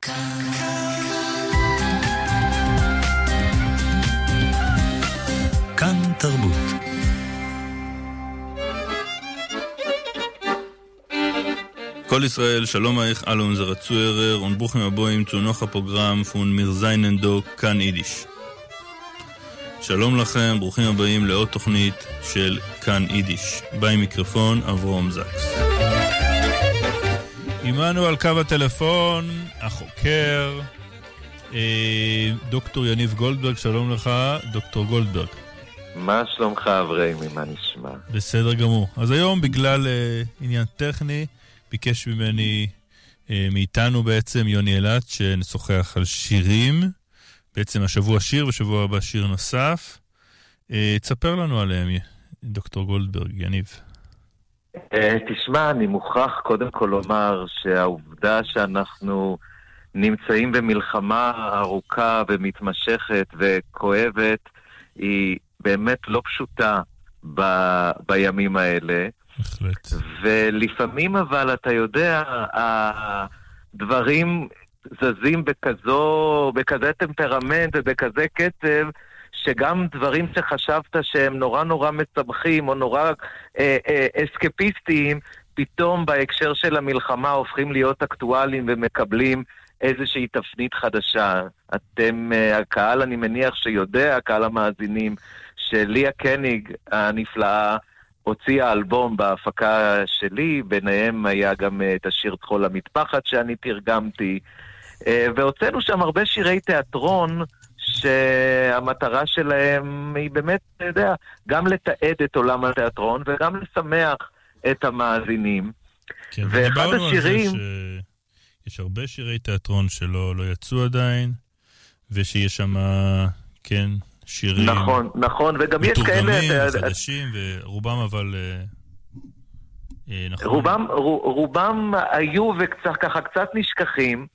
כאן תרבות. כל ישראל, שלום אייך אלע אונזערע צוהערער און ברוכים הבאים צו נאך א פראגראם פון מיר זיינען דא כאן אידיש. שלום לכם, ברוכים הבאים לעוד תוכנית של כאן אידיש. ביים מיקרופון אברהם זקס. עמנו על קו הטלפון החוקר דוקטור יניב גולדברג, שלום לך דוקטור גולדברג. מה שלומך אבריימי, מה נשמע? בסדר גמור. אז היום בגלל עניין טכני ביקש ממני, מאיתנו בעצם, יוני אלעד, שנשוחח על שירים. בעצם השבוע שיר ושבוע הבא שיר נוסף. תספר לנו עליהם, דוקטור גולדברג, יניב. תשמע, אני מוכרח קודם כל לומר שהעובדה שאנחנו נמצאים במלחמה ארוכה ומתמשכת וכואבת היא באמת לא פשוטה בימים האלה. בהחלט. ולפעמים אבל, אתה יודע, הדברים זזים בכזה טמפרמנט ובכזה קצב, שגם דברים שחשבת שהם נורא נורא משמחים או נורא אסקפיסטיים, פתאום בהקשר של המלחמה הופכים להיות אקטואליים ומקבלים איזושהי תפנית חדשה. אתם, הקהל, אני מניח שיודע, הקהל המאזינים, שליה קניג הנפלאה הוציאה אלבום בהפקה שלי, ביניהם היה גם את השיר טחול המטפחת שאני תרגמתי, והוצאנו שם הרבה שירי תיאטרון שהמטרה שלהם היא באמת, אתה יודע, גם לתעד את עולם התיאטרון וגם לשמח את המאזינים. כן, ואחד ודיברנו על זה השירים שיש הרבה שירי תיאטרון שלא, לא יצאו עדיין, ושיש שם, כן, שירים נכון, נכון, וגם יש כאלה, מתורגמים אתה יודע, וחדשים, ורובם אבל נכון. רובם היו וקצת, ככה קצת נשכחים,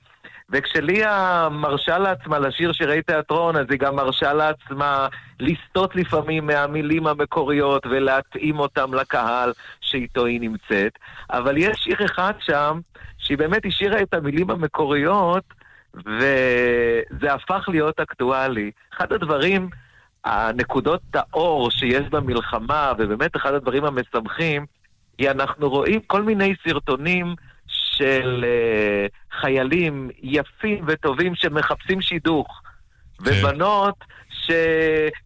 וכשליה מרשה לעצמה לשיר שירי תיאטרון, אז היא גם מרשה לעצמה לסטות לפעמים מהמילים המקוריות ולהתאים אותם לקהל שאיתו היא נמצאת. אבל יש שיר אחד שם, שהיא באמת השאירה את המילים המקוריות, וזה הפך להיות אקטואלי. אחד הדברים, הנקודות האור שיש במלחמה, ובאמת אחד הדברים המשמחים, היא אנחנו רואים כל מיני סרטונים של חיילים יפים וטובים שמחפשים שידוך. ובנות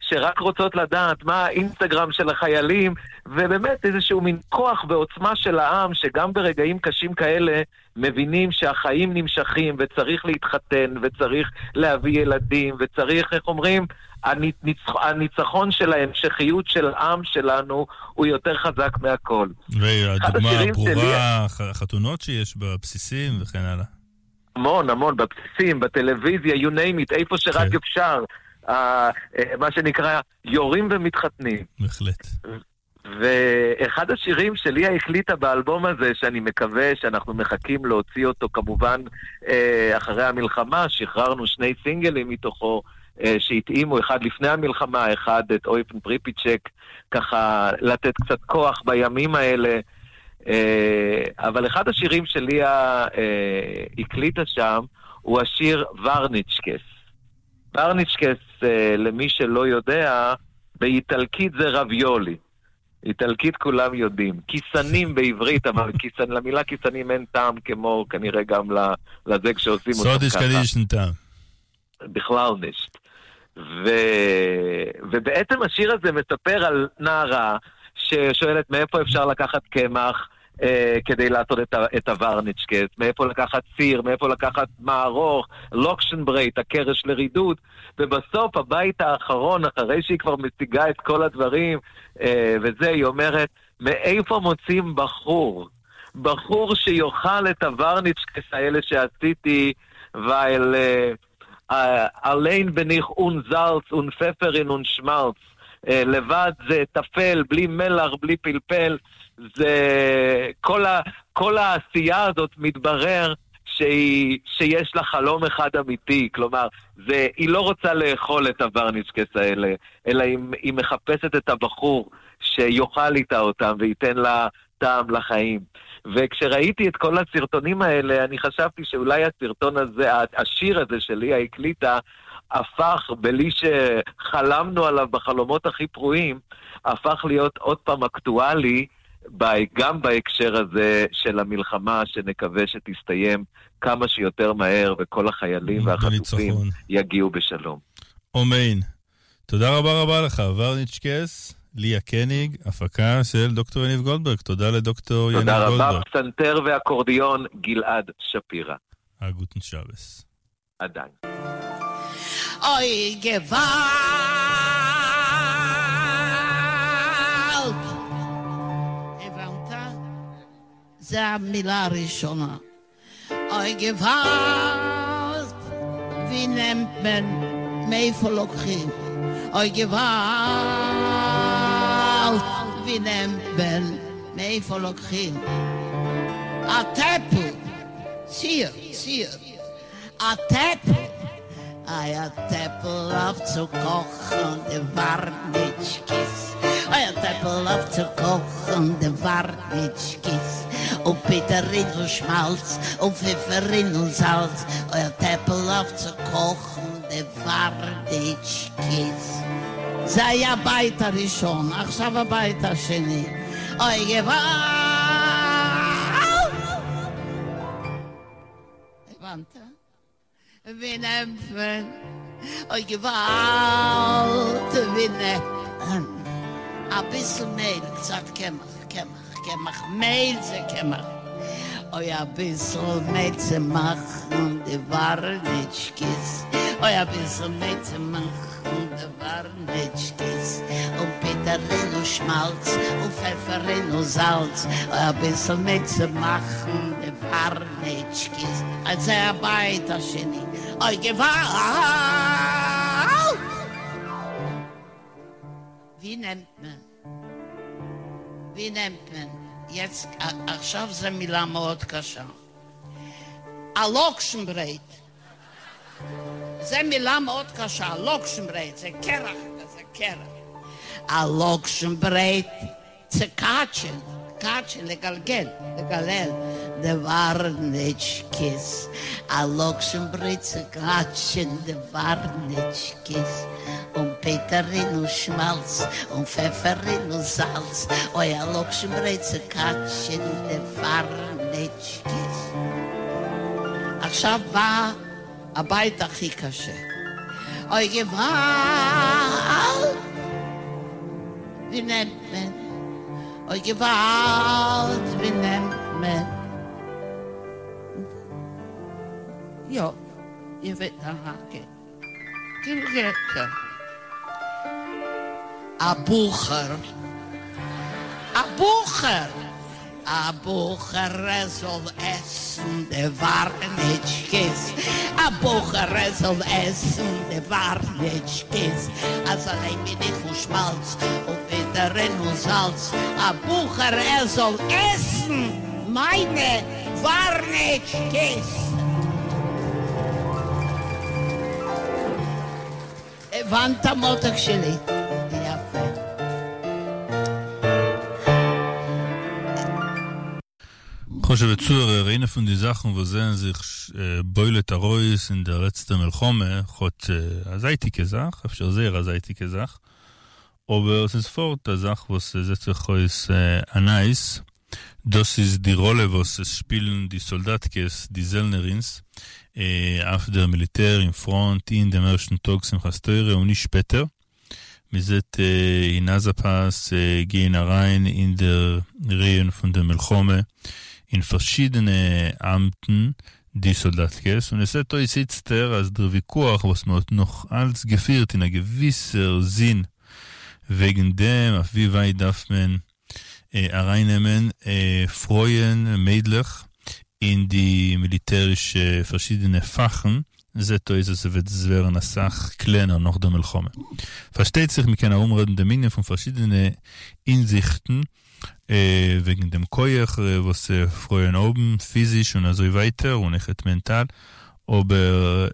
שרק רוצות לדעת מה האינסטגרם של החיילים, ובאמת איזשהו מין כוח ועוצמה של העם, שגם ברגעים קשים כאלה מבינים שהחיים נמשכים וצריך להתחתן וצריך להביא ילדים וצריך, איך אומרים, הניצחון של ההמשכיות של העם שלנו הוא יותר חזק מהכל. והדוגמה אחד השירים הברורה, שלי החתונות שיש בבסיסים וכן הלאה. המון, המון, בבסיסים, בטלוויזיה, you name it, איפה שרק אפשר. מה שנקרא, יורים ומתחתנים. בהחלט. ואחד השירים שליה הקליטה באלבום הזה, שאני מקווה שאנחנו מחכים להוציא אותו כמובן אחרי המלחמה, שחררנו 2 סינגלים מתוכו שהתאימו, אחד לפני המלחמה, אחד את אויפן פריפיצ'ק, ככה לתת קצת כוח בימים האלה. אבל אחד השירים שליה הקליטה שם, הוא השיר ורניצ'קס. ורניצ'קס, למי שלא יודע, באיטלקית זה רביולי. איטלקית כולם יודעים. כיסנים בעברית, אבל למילה כיסנים אין טעם כמו כנראה גם לזה כשעושים אותו סודיש ככה. קדיש אין טעם. בכלל נישט. ובעצם השיר הזה מספר על נערה ששואלת מאיפה אפשר לקחת קמח כדי לעשות את הוורניצ'קס, מאיפה לקחת סיר, מאיפה לקחת מערוך, לוקשנברייט, הקרש לרידוד, ובסוף הבית האחרון, אחרי שהיא כבר משיגה את כל הדברים, וזה, היא אומרת, מאיפה מוצאים בחור? בחור שיאכל את הוורניצ'קס האלה שעשיתי, weil allein bin ich un Salz un Pfefferin un Schmalz. לבד זה טפל, בלי מלח, בלי פלפל, זה כל העשייה הזאת מתברר שיש לה חלום אחד אמיתי, כלומר, היא לא רוצה לאכול את הוורניצ'קס האלה, אלא היא מחפשת את הבחור שיאכל איתה אותם וייתן לה טעם לחיים. וכשראיתי את כל הסרטונים האלה, אני חשבתי שאולי הסרטון הזה, השיר הזה שליה הקליטה, הפך, בלי שחלמנו עליו בחלומות הכי פרועים, הפך להיות עוד פעם אקטואלי, גם בהקשר הזה של המלחמה, שנקווה שתסתיים כמה שיותר מהר, וכל החיילים והחטופים יגיעו בשלום. אמן. תודה רבה רבה לך, ורניצ'קס, ליה קניג, הפקה של דוקטור יניב גולדברג. תודה לדוקטור יניב גולדברג. תודה רבה, פסנתר ואקורדיון גלעד שפירא. א גוטן שבת. עדיין. אוי געוואלד! הבנת? זה המילה הראשונה. אוי געוואלד! ווי נעמט מען? מאיפה לוקחים? אוי געוואלד! ווי נעמט מען? מאיפה לוקחים? א טעפל! ציר, ציר. א טעפל! איי א טעפל אויף צו קאכן די ווארניטשקעס, איי א טעפל אויף צו קאכן די ווארניטשקעס, און פוטערין און שמאלץ, און פעפערין און זאלץ, אוי א טעפל אויף צו קאכן די ווארניטשקעס. זה היה הבית הראשון, עכשיו הבית השני. אוי געוואלד! הבנת? ווי נעמט מען? אוי געוואלד! ווי נעמט מען? אביסל מעל, קצת קמח, קמח, קמח, מעל זה קמח. אוי אביסל מעל צו מאכן די ווארניטשקעס, אוי אביסל מעל צו מאכן די ווארניטשקעס, און פוטערין און שמאלץ, און פעפערין און זאלץ, אוי אביסל מעל צו מאכן די ווארניטשקעס. אז זה הבית השני. אוי געוואלד! ווי נעמט מען? ווי נעמט מען? יעצט עכשיו זו מילה מאוד קשה. א לאקשן ברעט. זה מילה מאוד קשה, לאקשן ברעט, זה קרח, זה קרח. א לאקשן ברעט צו קאטשען, קאטשען, לגלגל, לגלל, די ווארניטשקעס. א לאקשן ברעט צו קאטשען די ווארניטשקעס. און פוטערין און שמאלץ, און פעפערין און זאלץ, אוי א לאקשן ברעט צו קאטשען די ווארניטשקעס. עכשיו בא הבית הכי קשה. אוי געוואלד! ווי נעמט מען? אוי געוואלד! ווי נעמט מען? יא, איר וועט אהא כן. כן כן כן. א בחור. א בחור! א בחור ער זאל עסן די ווארניטשקעס, א בחור ער זאל עסן די ווארניטשקעס, אז אליין בין איך און שמאלץ און פוטערין און זאלץ, א בחור ער זאל עסן מיינע ווארניטשקעס. הבנת מותק שלי? יפה. חשובע צוהערער, איינע פון די זאכן וואס זעען זיך בולט ארויס אין דער לעצטער מלחמה, כאטש א זייטיגע זאך, אפשר זייער א זייטיגע זאך, אבער ס'איז פארט א זאך וואס זעט זיך אויס א נייעס, דאס איז די ראלע וואס עס שפילן די סאלדאטקעס, די זעלנערינס, אויף דער מיליטער אין פראנט אין דעם ערשטן טאג שמחת תורה און נישט שפעטער. מען זעט אין עזה פאס גייען אריין אין דער רייען פון דער מלחמה אין פארשידענע אמטן די סאלדאטקעס, און עס זעט אויס איצטער אז דער וויכוח וואס מען האט נאך אלץ געפירט אין א געוויסער זין וועגן דעם אויף ווי ווייט דארף מען ארייננעמען פרויען, מיידלעך, אין די מיליטערישע פארשידענע פאכן, זעט אויס אז ס'וועט ווערן אסאך קלענער נאך דער מלחמה. פארשטייט זיך מ'קען ארומרעדן דעם ענין פון פארשידענע הינזיכטן, וועגן דעם כח וואס פרויען האבן, פיזיש און אזוי ווייטער, און אויכעט מענטאל, אבער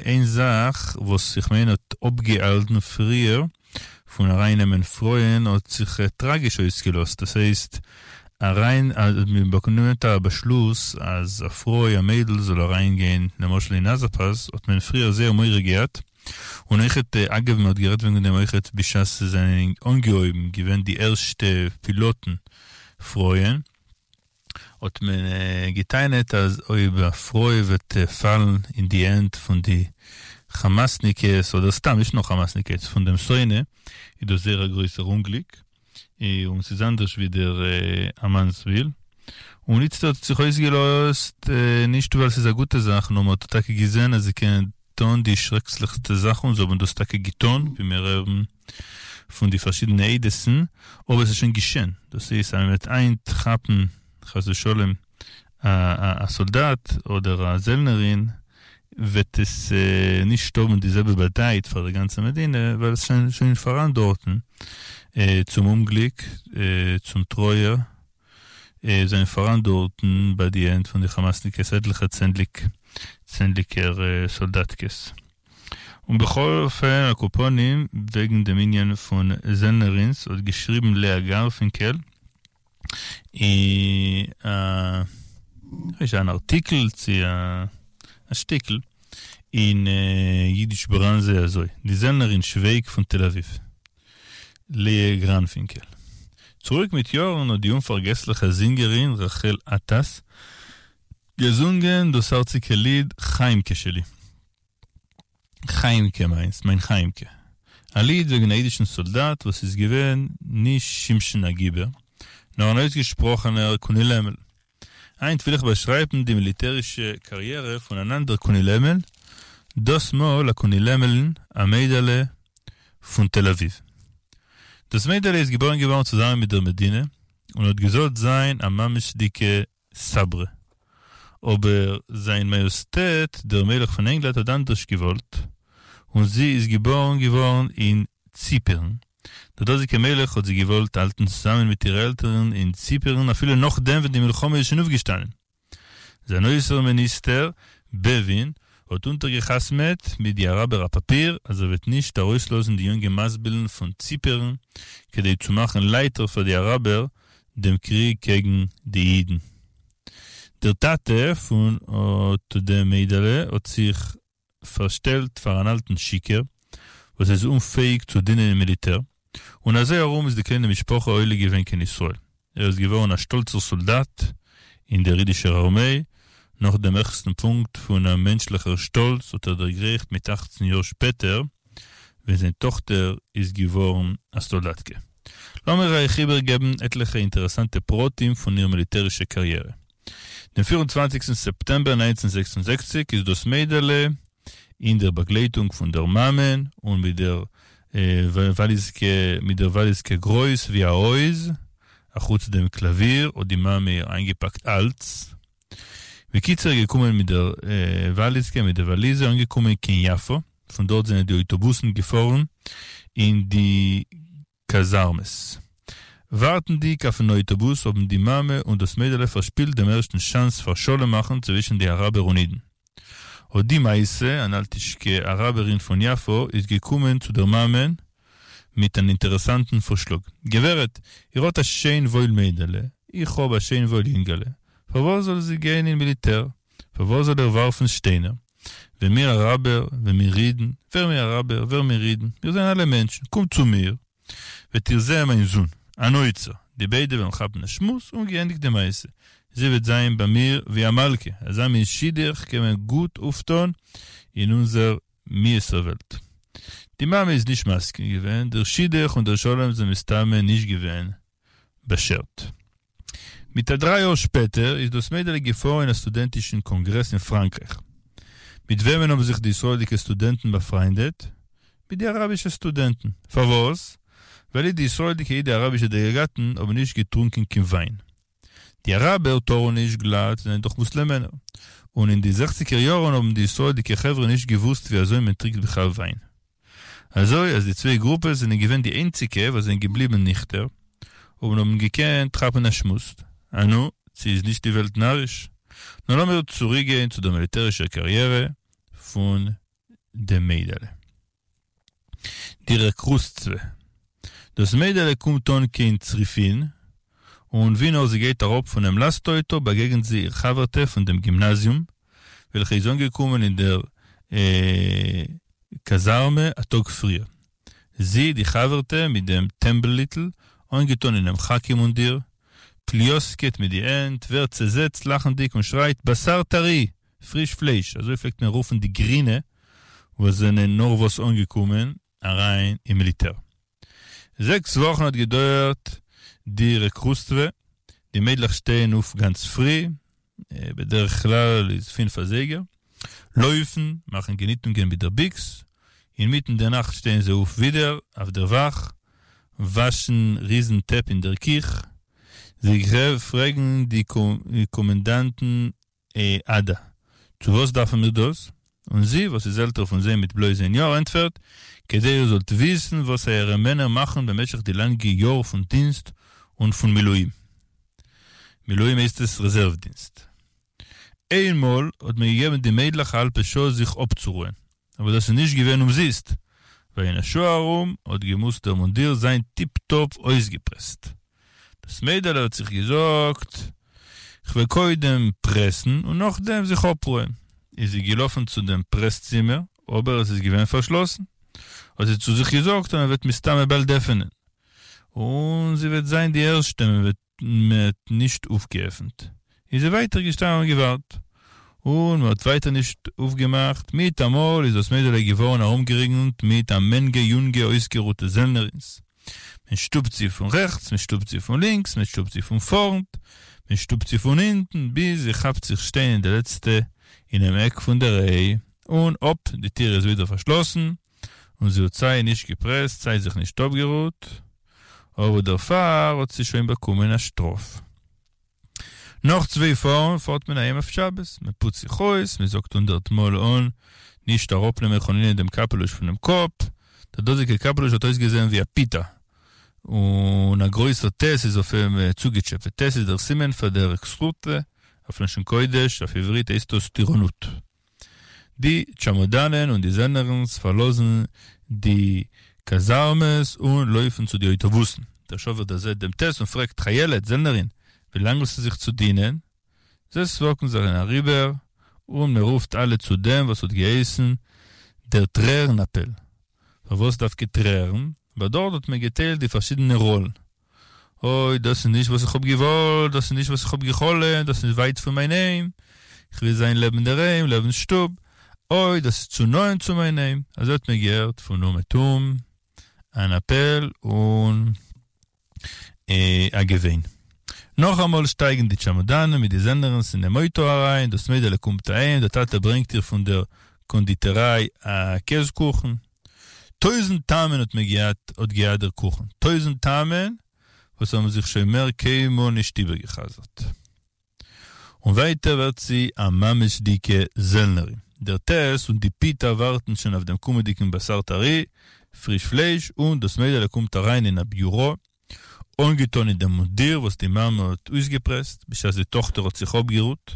איין זאך וואס איך מיין האט אפגעהאלטן פריער פון ארייננעמען פרויען האט זיך טראגיש אויסגעלאזט, דאס הייסט. אריין אז מען באקומט א באשלוס אז א פרוי א מיידל זאל אריין גיין למשל אין עזה פאס האט מען פריער זייער מורא געהאט און אויכעט אגב מען האט גערעדט וועגן דעם אויכעט בשעת ס'זענען אנגעהויבן געווען די ערשטע פילאטן פרויען האט מען געטענה'ט אז אויב א פרוי וועט פאלן אין די הענט פון די כאמאסניקעס אדער סתם נישט נאר כאמאסניקעס פון דעם שונא איז דאס זייער א גרויסער אומגליק און ס'איז אנדערש ווי דער א מאנסביל. און איצטערט האט זיך אויסגעלאזט נישט ווייל ס'איז א גוטע זאך נאר מ'האט טאקע געזען אז זיי קענען טון די שרעקליכסטע זאכן און זיי האבן דאס טאקע געטון ווי מיר הערן פון די פארשידענע עדות'ן אבער ס'איז שוין געשען דאס הייסט אז מ'וועט היינט כאפן חס ושלום א סאלדאט אדער א זעלנערין וועט עס נישט האבן די זעלבע באדייט פאר די גאנצע מדינה ווייל עס איז שוין פאראן דארטן צום אומגליק צום טרויער זענען פאראן דארטן ביי די הענט פון די כאמאסניקעס עטליכע צענדליג צענדליגער סאלדאטקעס. און בכל אופן על כל פנים וועגן דעם ענין פון זעלנערינס האט געשריבן לאה גארפינקעל אין א אן ארטיקל צו א שטיקל אין אידיש בראנזע אזוי, די זעלנערין שווייג פון תל אביב, לאה גראנפינקעל. צוריק מיט יארן האט די אומפארגעסליכע זינגערין רחל עטאס געזונגען דאס הארציגע ליד חיימקע שלי. חיימקע מיינס, מיין חיימקע. א ליד וועגן א אידישן סאלדאט וואס איז געווען נישט שמשון הגיבור, נאר אן אויסגעשפראכענער קונילעמל. היינט וויל איך באשרייבן די מיליטערישע קאריערע פון אן אנדער קונילעמל, דאס מאל א קונילעמל'ן, א מיידעלע פון תל אביב. דאס מיידעלע איז געבוירן געווארן צוזאמען מיט דער מדינה, און האט געזאלט זיין א ממש'דיגע סאברע. אבער זיין מאיאסטעט דער מלך פון ענגלאנד האט אנדערש געוואלט, און זי איז געבארן געווארן אין ציפערן. דער דאזיגער מלך האט זי געוואלט האלטן צוזאמען מיט אירע עלטערן אין ציפערן אפילו נאכדעם ווען די מלחמה איז שוין אויפגעשטאנען. זיין אויסערן מיניסטער, בעווין, האט אונטערגעחתמעט מיט די אראבער א פאפיר אז ער וועט נישט ארויסלאזן די יונגע מאנסבילן פון ציפערן כדי צו מאכן לייכטער פאר די אראבער דעם קריג קעגן די אידן. דער טאטע פון אט דעם מיידעלע האט זיך פארשטעלט פאר אן אלטן שיכור וואס איז אומפעאיג צו דינען אין מיליטער, און אזוי ארום איז די קליינע משפחה עולה געווען קיין ישראל. ער איז געווארן א שטאלצער סאלדאט אין דער אידישער ארמיי, נאך דעם העכסטן פונקט פון א מענטשליכער שטאלץ האט ער דערגרייכט מיט אכצן יאר שפעטער, ווען זיין טאכטער איז געווארן א סאלדאטקע. לאמיר אייך איבערגעבן עטליכע אינטערעסאנטע פרטים פון איר מיליטערישע קאריערע. דעם פיר און צוואנציגסטן סעפטעמבער 1966 איז דאס מיידעלע, אין דער באגלייטונג פון דער מאמען און מיט דער וואליזקע מיט דער וואליזקע גרויס ווי א הויז, אחוץ דעם קלאוויר האט די מאמע איר איינגעפאקט אלץ. בקיצור געקומען מיט דער וואליזקע מיט דער וואליזע אנגעקומען קיין יפו, פון דארט זענען די אויטאבוסן געפארן אין די קאזארמעס. ווארטנדיג אויפן אויטאבוס האבן די מאמע און דאס מיידעלע פארשפילט דעם ערשטן שאנס פאר שלום מאכן צווישן די אראבער און אידן. אט די מעשה, אן אלטישקע אראבערין פון יפו איז געקומען צו דער מאמען מיט אן אינטערעסאנטן פארשלאג. גברת, איר האט א שיין וואויל מיידעלע, איך האב א שיין וואויל יונגעלע, פארוואס זאל זי גיין אין מיליטער? פארוואס זאל ער ווארפן שטיינער? ווען מיר אראבער, ווען מיר אידן, ווער מיר אראבער, ווער מיר אידן, מיר זענען אלע מענטשן, קומט צו מיר, וועט איר זען מיין זון, אן אוצר, די ביידע וועלן כאפן א שמועס און געענדיגט די מעשה, זי וועט זיין ביי מיר ווי א מלכה, אזא מין שידוך קען מען גוט אויפטון אין אונזער מיאוס'ער וועלט. די מאמע איז נישט מסכים געווען, דער שידוך און דער שלום זענען מסתמא נישט געווען באשערט. מיט א דריי יאר שפעטער איז דאס מיידעלע געפארן אין א סטודענטישן קאנגרעס אין פראנקרייך. מיט וועמען האבן זיך די ישראל'דיגע סטודענטן באפריינדעט? מיט די אראבישע סטודענטן. פארוואס? ווייל אי די ישראל'דיגע אי די אראבישע דעלעגאטן האבן נישט געטרונקען קיין וויין. די אראבער טארן נישט גלאט זענען דאך מוסלעמענער. און אין די זעכציגער יארן האבן די ישראל'דיגע חברה נישט געוואוסט ווי אזוי מען טרינקט בכלל וויין. אזוי אז די צוויי גרופעס זענען געווען די איינציגע וואס זענען געבליבן ניכטער, און האבן געקענט כאפן א שמועס. אנו, צו איז נישט די וועלט נאריש? נאר לאמיר צוריקגיין צו דער מיליטערישער קאריערע פון דעם מיידעלע. די רעקרוטסטווע. דאס מיידעלע קומט אן קיין צריפין. און ווי נאר זי גייט אראפ פונעם לאסט-אויטא באגעגנט זי איר חבר'טע פון דעם גימנאזיום, וועלכע איז אנגעקומען אין דער קאזארמע א טאג פריער. זי, די חבר'טע מיט דעם טעמבל-היטל, אנגעטאן אינעם כאקי מונדיר, פליוסקעט מיט די הענט, ווערט צעזעצט לאכנדיג און שרייט בשר טרי! פריש פלייש! אזוי פלעגט מען רופן די גרינע וואס זענען נארוואס אנגעקומען אריין אין מיליטער. זעקס וואכן האט געדויערט די רעקרוטסטווע, די מיידלעך שטייען אויף גאנץ פרי, בדרך כלל איז פינף אזייגער, לויפן, מאכן געניטונגען מיט דער ביקס, אינמיטן דער נאכט שטייען זיי אויף ווידער אויף דער וואך, וואשן ריזן טעפ אין דער קיך, זיי פרעגן די קאמענדאנטן עדה, צו וואס דארפן מיר דאס? און זי, וואס איז עלטער פון זיי מיט בלויז איין יאר, ענטפערט, כדי איר זאלט וויסן וואס אייערע מענער מאכן במשך די לאנגע יאר פון דינסט און פון מילואים. מילואים הייסט עס רעזערוו דינסט. איינמאל האט מען געגעבן די מיידלעך א האלבע שעה זיך אפצורוען, אבער דאס איז נישט געווען אומזיסט, ווייל אין א שעה ארום האט געמוזט דער מונדיר זיין טיפ-טאפ אויסגעפרעסט. דאס מיידעלע האט זיך געזאגט, כ'וועל קודם פרעסן און נאכדעם זיך אפרוען. איז זי געלאפן צו דעם פרעס-צימער, אבער עס איז געווען פארשלאסן. האט זי צו זיך געזאגט אז מען וועט מסתמא באלד עפענען, און זי וועט זיין די ערשטע מען וועט מען האט נישט אויפגעעפנט, איז זי ווייטער געשטאנען און געווארט, און מען האט ווייטער נישט אויפגעמאכט, מיטאמאל איז דאס מיידעלע געווארן ארומגערינגלט מיט א מענגע יונגע אויסגערוטע זעלנערינס, מען שטופט זי פון רעכטס, מען שטופט זי פון לינקס, מען שטופט זי פון פארנט, מען שטופט זי פון הינטן, ביז זי כאפט זיך שטיין אין די לעצטע אינעם עק פון דער ריי, און אפ, די טיר איז ווידער פארשלאסן, און זי האט סיי נישט געפרעסט סיי זיך נישט אפגערוהט, אבער דערפאר האט זי שוין באקומען א שטראף. נאך צוויי פארן פארט מען אהיים אויף שבת, מען פוצט זיך אויס, מען זאגט הונדערט מאל אן נישט אראפנעמען חלילה דעם קאפעלוש פונעם קאפ, דער דאזיגער קאפעלוש האט אויסגעזען ווי א פיתה, און א גרויסער טית איז אויף אים צוגעטשעפעט, טית איז דער סימן פאר דער רעקרוטסטווע, אויף לשון קודש, אויף עברית הייסט דאס טירונות. די טשעמאדאנען און די זעלנערינס פארלאזן די קאזארמעס און לויפן צו די אויטאבוסן. דער שאפער דערזעט דעם טית און פרעגט, חיילת, זעלנערין, ווי לאנג האסטו זיך צו דינען? זיי סמאקן זיך אריבער און מען רופט אלע צו דעם וואס האט געהייסן דער טרערן אפעל. פארוואס דווקא טרערן? ווייל דארט האט מען געטיילט די פארשידענע ראלן. אוי, דאס איז נישט וואס איך האב געוואלט, דאס איז נישט וואס איך האב גע'חלומ'ט, דאס איז ווייט פון מיין היים, איך וויל זיין לעבן דער היים, לעבן שטוב, אוי, דאס איז צו נאענט צו מיין היים, אזוי האט מען געהערט פון אומעטום אן אפעל און א געוויין. נאכאמאל שטייגן די טשעמאדאנען מיט די זעלנערינס אינעם אויטא אריין, דאס מיידעלע קומט אהיים, דער טאטע ברענגט איר פון דער קאנדיטעריי א קעז קוכן, טויזנט טעמען האט מען געהאט האט געהאט דער קוכן, טויזנט טעמען וואס האבן זיך שוין מער קיינמאל נישט איבערגעחזרט. און ווייטער ווערט זי א ממש'דיגע זעלנערין. דער טית און די פיטא ווארטן שוין אויף דעם קומענדיגן בשר טרי, פריש פלייש, און דאס מיידעלע קומט אריין אין א ביורא, אנגעטאן אין דעם מונדיר וואס די מאמע האט אויסגעפרעסט בשעת די טאכטער האט זיך אפגערוהט.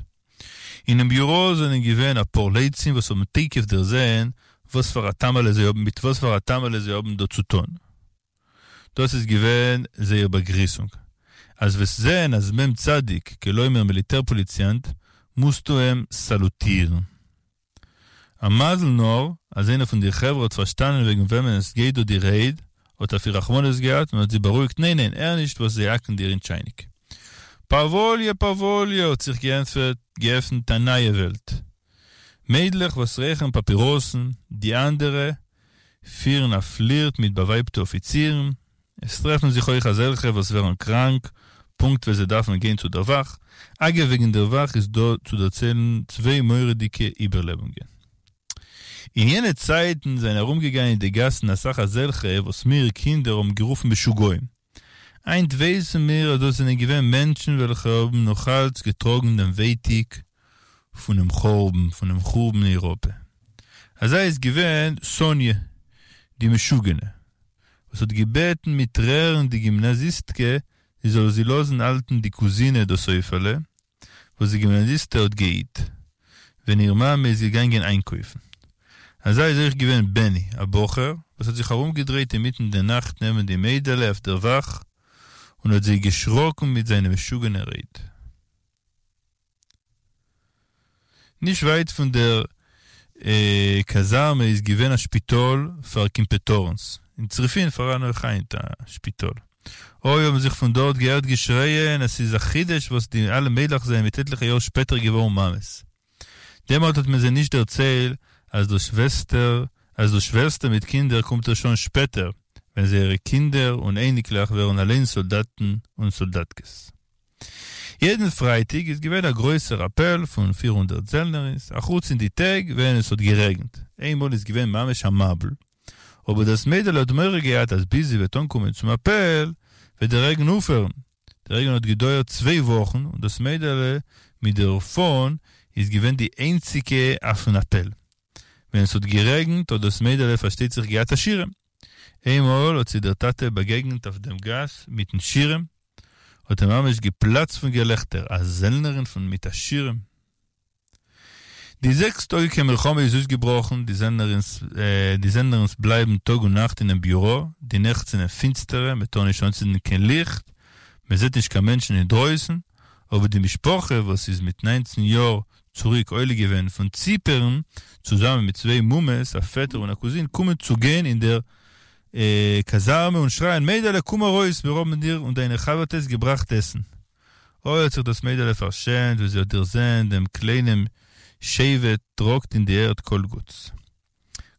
אינעם ביוראָ זענען געווען אַ פּאָר לצים וואָס האָבן תּיכּף דערזען וואָס פֿאַר אַ טעמעלע זיי האָבן מיט וואָס פֿאַר אַ טעמעלע זיי האָבן דאָ צו טאָן. דאָס איז געווען זייער באַגריסונג. אַז וועסט זען אַז מ' צדיק, כּלומר מיליטער-פּאָליציאַנט, מוזטו אים סאַלוטירן. א מזל נאר אז איינער פון די חברה האט פארשטאנען וועגן וועמען עס גייט דא די רייד, האט אויף איר רחמנות געהאט און האט זי בארואיגט ניין ניין הער נישט וואס זיי האקן דיר אין טשייניק. פאוואליע פאוואליע האט זיך געענטפערט געעפנט א נייע וועלט. מיידלעך וואס רייכערן פאפיראסן, די אנדערע פירן א פלירט מיט באווייבטע אפיצירן, עס טרעפן זיך אויך אזעלכע וואס ווערן קראנק פונקט ווען זיי דארפן גיין צו דער וואך, אגב וועגן דער וואך איז דא צו דערציילן צוויי מורא'דיגע איבערלעבונגען. אין יענע צייטן זענען ארומגעגאנגען אין די גאסן אסאך אזעלכע וואס מיר קינדער האבן גערופן משוגעים. היינט ווייסן מיר אז דאס זענען געווען מענטשן וועלכע האבן נאכאלץ געטראגן דעם ווייטיג פונעם חורבן, פונעם חורבן אין אייראפע. אזא איז געווען סאניע די משוגענע, וואס האט געבעטן מיט טרערן די גימנאזיסטקע זי זאל זי לאזן האלטן די קוזינע דאס עופעלע וואס די גימנאזיסטע האט געהיט ווען איר מאמע איז געגאנגען איינקויפן. אזא איז אויך געווען בעני, א בחור וואס האט זיך ארומגעדרייט אינמיטן די נאכט נעבן די מיידעלע אויף דער וואך. און האט זיי געשראקן מיט זיינע משוגענע רייד. נישט ווייט פון דער קאזארמע איז געווען א שפיטאל פאר קימפעטארנס, אין צריפין פאראן אויך היינט א שפיטאל. אוי האבן זיך פון דארט געהערט געשרייען אז ס'איז א חידוש וואס די אלע מיידלעך זענען מיט עטליכע יאר שפעטער געווארן מאמעס. דעמאלט האט מען זיי נישט דערציילט אז דאס שוועסטער אז דאס שווערסטע מיט קינדער קומט ערשט אן שפעטער, ווען זייערע קינדער און אייניקלעך ווערן אליין סאלדאטן און סאלדאטקעס. יעדן פרייטאג איז געווען א גרויסער אפעל פון 400 זעלנערינס, אחוץ אין די טעג ווען עס האט גערעגנט. איינמאל איז געווען ממש א מבול, אבער דאס מיידעלע האט מורא געהאט אז ביז זי וועט אנקומען צום אפעל וועט דער רעגן אויפהערן. דער רעגן האט געדויערט צוויי וואכן און דאס מיידעלע מיט דער פאן איז געווען די איינציגע אויפן אפעל. ווען עס האט גערעגנט האט דאס מיידעלע פארשטייט זיך געהאט א שירעם. איינמאל האט זי דער טאטע באגעגנט אויף דעם גאס מיטן שירעם, האט ער ממש געפלאצט פון געלעכטער, א זעלנערין פון מיט א שירעם. די זעקס-טאגיקע מלחמה איז אויסגעבראכן, די זעלנערינס די זעלנערינס בלייבן טאג און נאכט אינעם ביורא, די נעכט זענען פינסטערע, מען טאר נישט אנצינדן קיין ליכט, מען זעט נישט קיין מענטשן אינדרויסן, אבער די משפחה וואס איז מיט ניינצן יאר צוריק עולה געווען פון ציפערן, צוזאמען מיט צוויי מומעס, א פעטער און א קוזין, קומען צו גיין אין דער קאזארמע און שרייען, מיידעלע קום ארויס, מיר האבן דיר און דיינע חבר'טעס געבראכט עסן. אוי האט זיך דאס מיידעלע פארשעמט ווען זי האט דערזען דעם קליינעם שבט טראגט אין די ערד כל גוטס.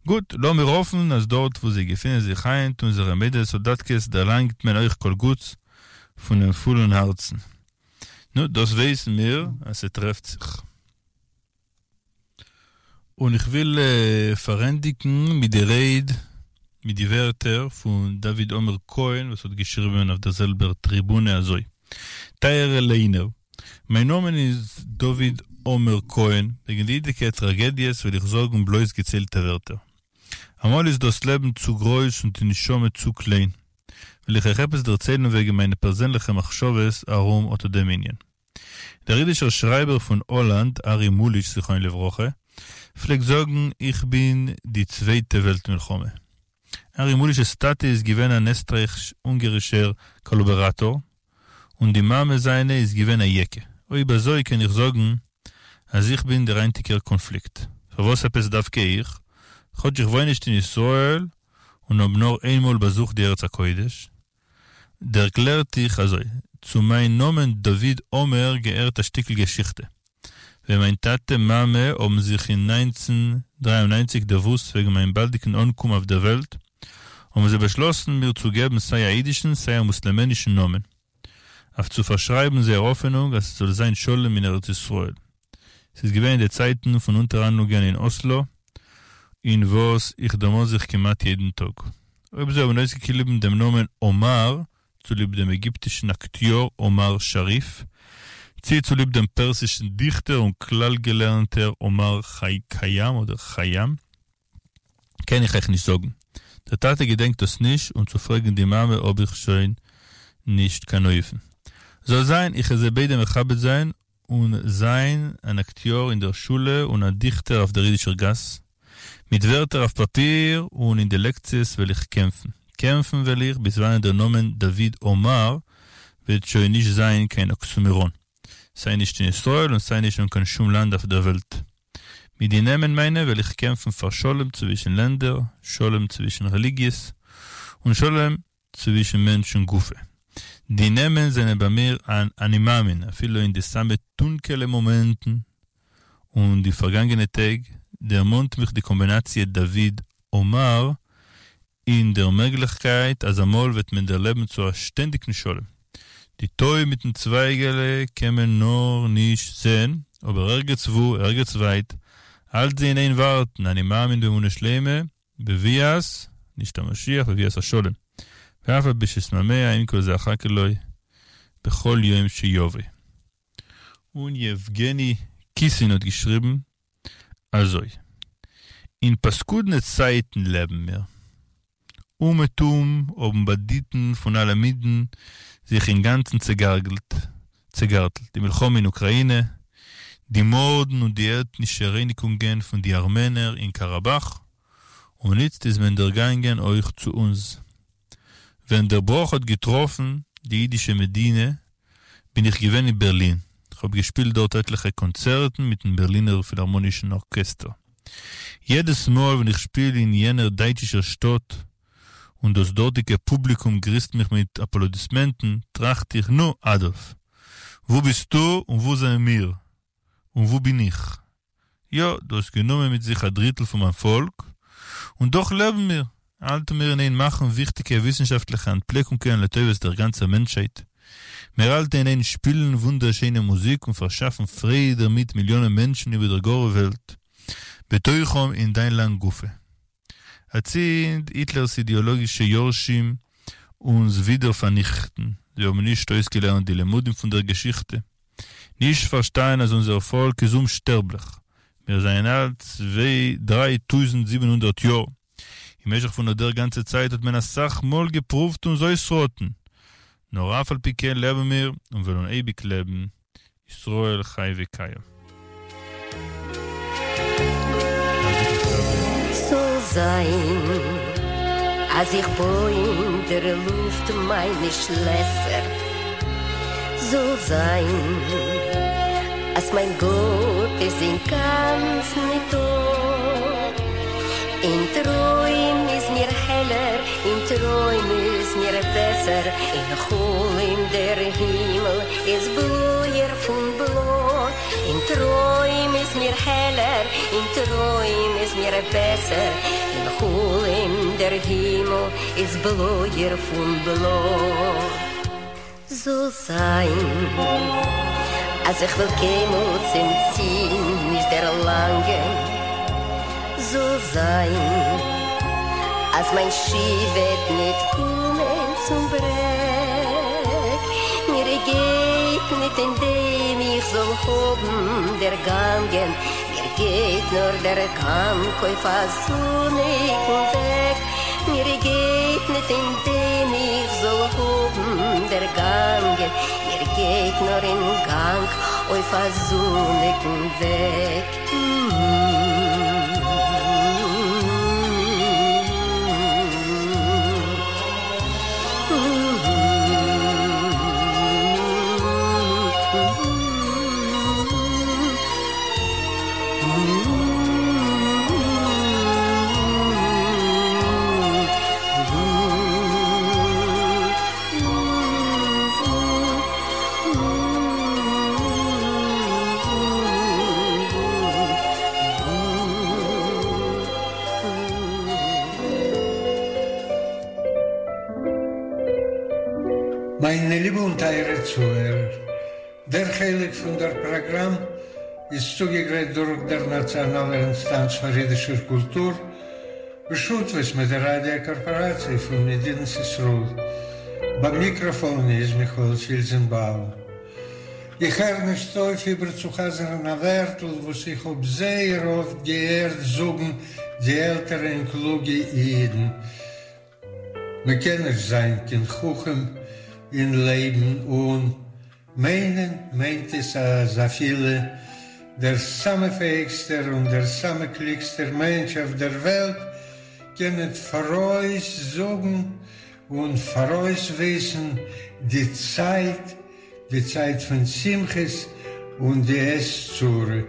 גוט, לאמיר האפן אז דארט וואו זיי געפינען זיך היינט אונזערע מיידעלע סאלדאטקעס דערלאנגט מען אויך כל גוטס פונעם פולן הארצן. נו, דאס ווייסן מיר אז ס'טרעפט זיך. און איך וויל פארענדיגן מיט די רייד, מיט די ווערטער פון דוד עומר כהן וואס האט געשריבען אויף דער זעלבער טריבונע אזוי, טייערע ליינער, מיין נאמען איז דוד עומר כהן, וועגן די היטיקע טראגעדיעס וועל איך זאגן בלויז געציילטע ווערטער. אמאל איז דאס לעבן צו גרויס און די נשמה צו קליין. וועל איך אייך עפעס דערציילן וועגן מיינע פערזענליכע מחשבות ארום אט דעם ענין. דער אידישער שרייבער פון האלאנד, ארי מוליש זכרונו לברכה, פלעגט זאגן איך בין די צווייטע וועלט מלחמה. ארי מוליש'ס טאטע איז געווען אן עסטרייך-אונגערישער קאלאבאראטאר, און די מאמע זיינע איז געווען א יעקע. אויב אזוי קען איך זאגן אז איך בין דער היינטיגער קאנפליקט. פארוואס עפעס דווקא איך? כאטש איך וואוין נישט אין ישראל און האב נאר איינמאל באזוכט די ארץ הקודש, דערקלער איך אזוי, צו מיין נאמען דוד עומר געהערט א שטיקל געשיכטע. ווען מיין טאטע מאמע האבן זיך אין 1993 דערוואוסט וועגן מיין באלדיגן אנקום אויף דער וועלט, האבן זיי באשלאסן מיר צו געבן סיי א אידישן סיי א מוסלעמענישן נאמען, אויף צו פארשרייבן זייער האפענונג אז ס'זאל זיין שלום אין ארץ ישראל. ס'איז געווען אין די צייטן פון אונטערהאנדלונגען אין אסלא, אין וואס איך דערמאן זיך כמעט יעדן טאג. אויב זיי האבן אויסגעקליבן דעם נאמען אומאר צוליב דעם עגיפטישן אקטיאר אומאר שאריף, צי צוליב דעם פערסישן דיכטער און כלל-געלערנטער אומאר כיאם אדער כים, קען איך אייך נישט זאגן. דער טאטע געדענקט דאס נישט און צו פרעגן די מאמע האב איך שוין נישט קיין אופן. זאל זיין, איך וועל זיי ביידע מכבד זיין און זיין אן אקטיאר אין דער שולע און א דיכטער אויף דער אידישער גאס. מיט ווערטער אויף פאפיר און אין די לעקציעס וועל איך קעמפן. קעמפן וועל איך ביז וואנען דער נאמען דוד עומר וועט שוין נישט זיין קיין אקסימאראן. סיי נישט אין ישראל און סיי נישט אין קיין שום לאנד אויף דער וועלט. מיט די נעמען מיינע וועל איך קעמפן פאר שלום צווישן לענדער, שלום צווישן רעליגיעס, און שלום צווישן מענטשן גופא. די נעמען זענען ביי מיר אן אני מאמין, אפילו אין די סאמע טונקעלע מאמענטן און די פארגאנגענע טעג, דערמאנט מיך די קאמבינאציע דוד עומר אין דער מעגליכקייט אז אמאל וועט מען דערלעבן צו א שטענדיגן שלום. די טוי מיטן צווייגעלע קען מען נאר נישט זען, אבער ערגעץ וואו, ערגעץ ווייט, האלט זי אין איין ווארטן, אני מאמין באמונה שלימה, בביאת, נישט המשיח, בביאת השלום. ואף על פי שאתמהמה עם כל זה אחכה לו בכל יום שיבוא. און יעווגעני קיסין האט געשריבן אזוי, אין פאסקודנע צייטן לעבן מיר. אומעטום האבן באנדיטן פון אלע מינים זיך אינגאנצן צעגארגלט, צעגארטלט. די מלחמה אין אוקראינע, די מארדן און די עטנישע רייניגונגען פון די ארמענער אין קאראבאך, און איצט איז מען דערגאנגען אויך צו אונז. ווען דער בראך האט געטראפן. די ייִדישע מדינה, בין איך געווען אין בערלין. כ'האָב געשפּילט דאָרט עטלעכע קאָנצערטן מיטן בערלינער פֿילהאַרמאָנישן אָרקעסטער. יעדעס מאָל, ווען איך שפּיל אין יענער דײַטשישער שטאָט און דאָס דאָרטיקע פּובליקום גריסט מיך מיט אַפּלאָדיסמענטן, טראַכט איך, נו, אַדאָלף, וווּ ביסטו און וווּ זענען מיר? און וווּ בין איך? יא, דו האסט גענומען מיט זיך א דריטל פון מיין פאלק, און דאך לעבן מיר, האלטן מיר אין איין מאכן וויכטיגע וויסנשאפטליכע אנטפלעקונגען לטובת דער גאנצער מענטשהייט. מיר האלטן אין איין שפילן וואונדערשיינע מוזיק און פארשאפן פרייד דערמיט מיליאנען מענטשן איבער דער גארער וועלט, בתוכם אין דיין לאנד גופא. אצינד, היטלער'ס אידעאלאגישע יורשים אונז ווידער פארניכטן, זיי האבן נישט אויסגעלערנט די למודים פון דער געשיכטע, נישט פארשטאנען אז אונזער פאלק איז אומשטערבליך, מיר זענען אלט צוויי 3700 יאר, אין משך פון אט דער גאנצע צייט האט מען אסאך מאל געפרואווט אונז אויסראטן, נאר אף על פי כן לעבן מיר און וועלן אייביג לעבן, ישראל חי וקיים. זאל זיין אז איך בוי אין דער לופט מיינע שלעסער, זאל זיין אז מיין גאט איז אינגאנצן ניטא, אין טרוים איז מיר העלער, אין טרוים איז מיר בעסער, אין חלום דער הימל איז בלויער פון בלוי, אין טרוים איז מיר העלער, אין טרוים איז מיר בעסער, אין חלום דער הימל איז בלויער פון בלוי. זאל זיין אז איך וועל קיינמאל צום ציל נישט דערלאנגען, זאל זיין אז מיין שיף וועט ניט קומען צום ברעג, מיר גייט ניט אין דעם איך זאל האבן דערגאנגען, מיר גייט נאר דער גאנג אויף א זוניקן וועג, מיר גייט ניט אין דעם איך זאל האבן דערגאנגען, מיר גייט נאר אין גאנג אויף א זוניקן וועג. מיינע ליבע און טייערע צוהערער, דער חלק פון דער פראגראם איז צוגעגרייט דורך דער נאציאנאלער אינסטאנץ פאר אידישער קולטור, בשותפות מיט דער ראדיא קארפאראציע פון מדינת ישראל. ביים מיקראפאן איז מיכאל פילזנבאום. איך הער נישט אויף איבערצוחזר'ן א ווערטל וואס איך האב זייער אפט געהערט זאגן די עלטערע און קלוגע אידן, מ'קען נישט זיין קיין חכם אין לעבן און מיינען מיינט עס אז אפילו דער סאמע פעאיגסטער און דער סאמע קלוגסטער מענטש אויף דער וועלט קען ניט פאראויס זאגן און פאראויס וויסן די צייט, די צייט פון שמחות און די עת צרה.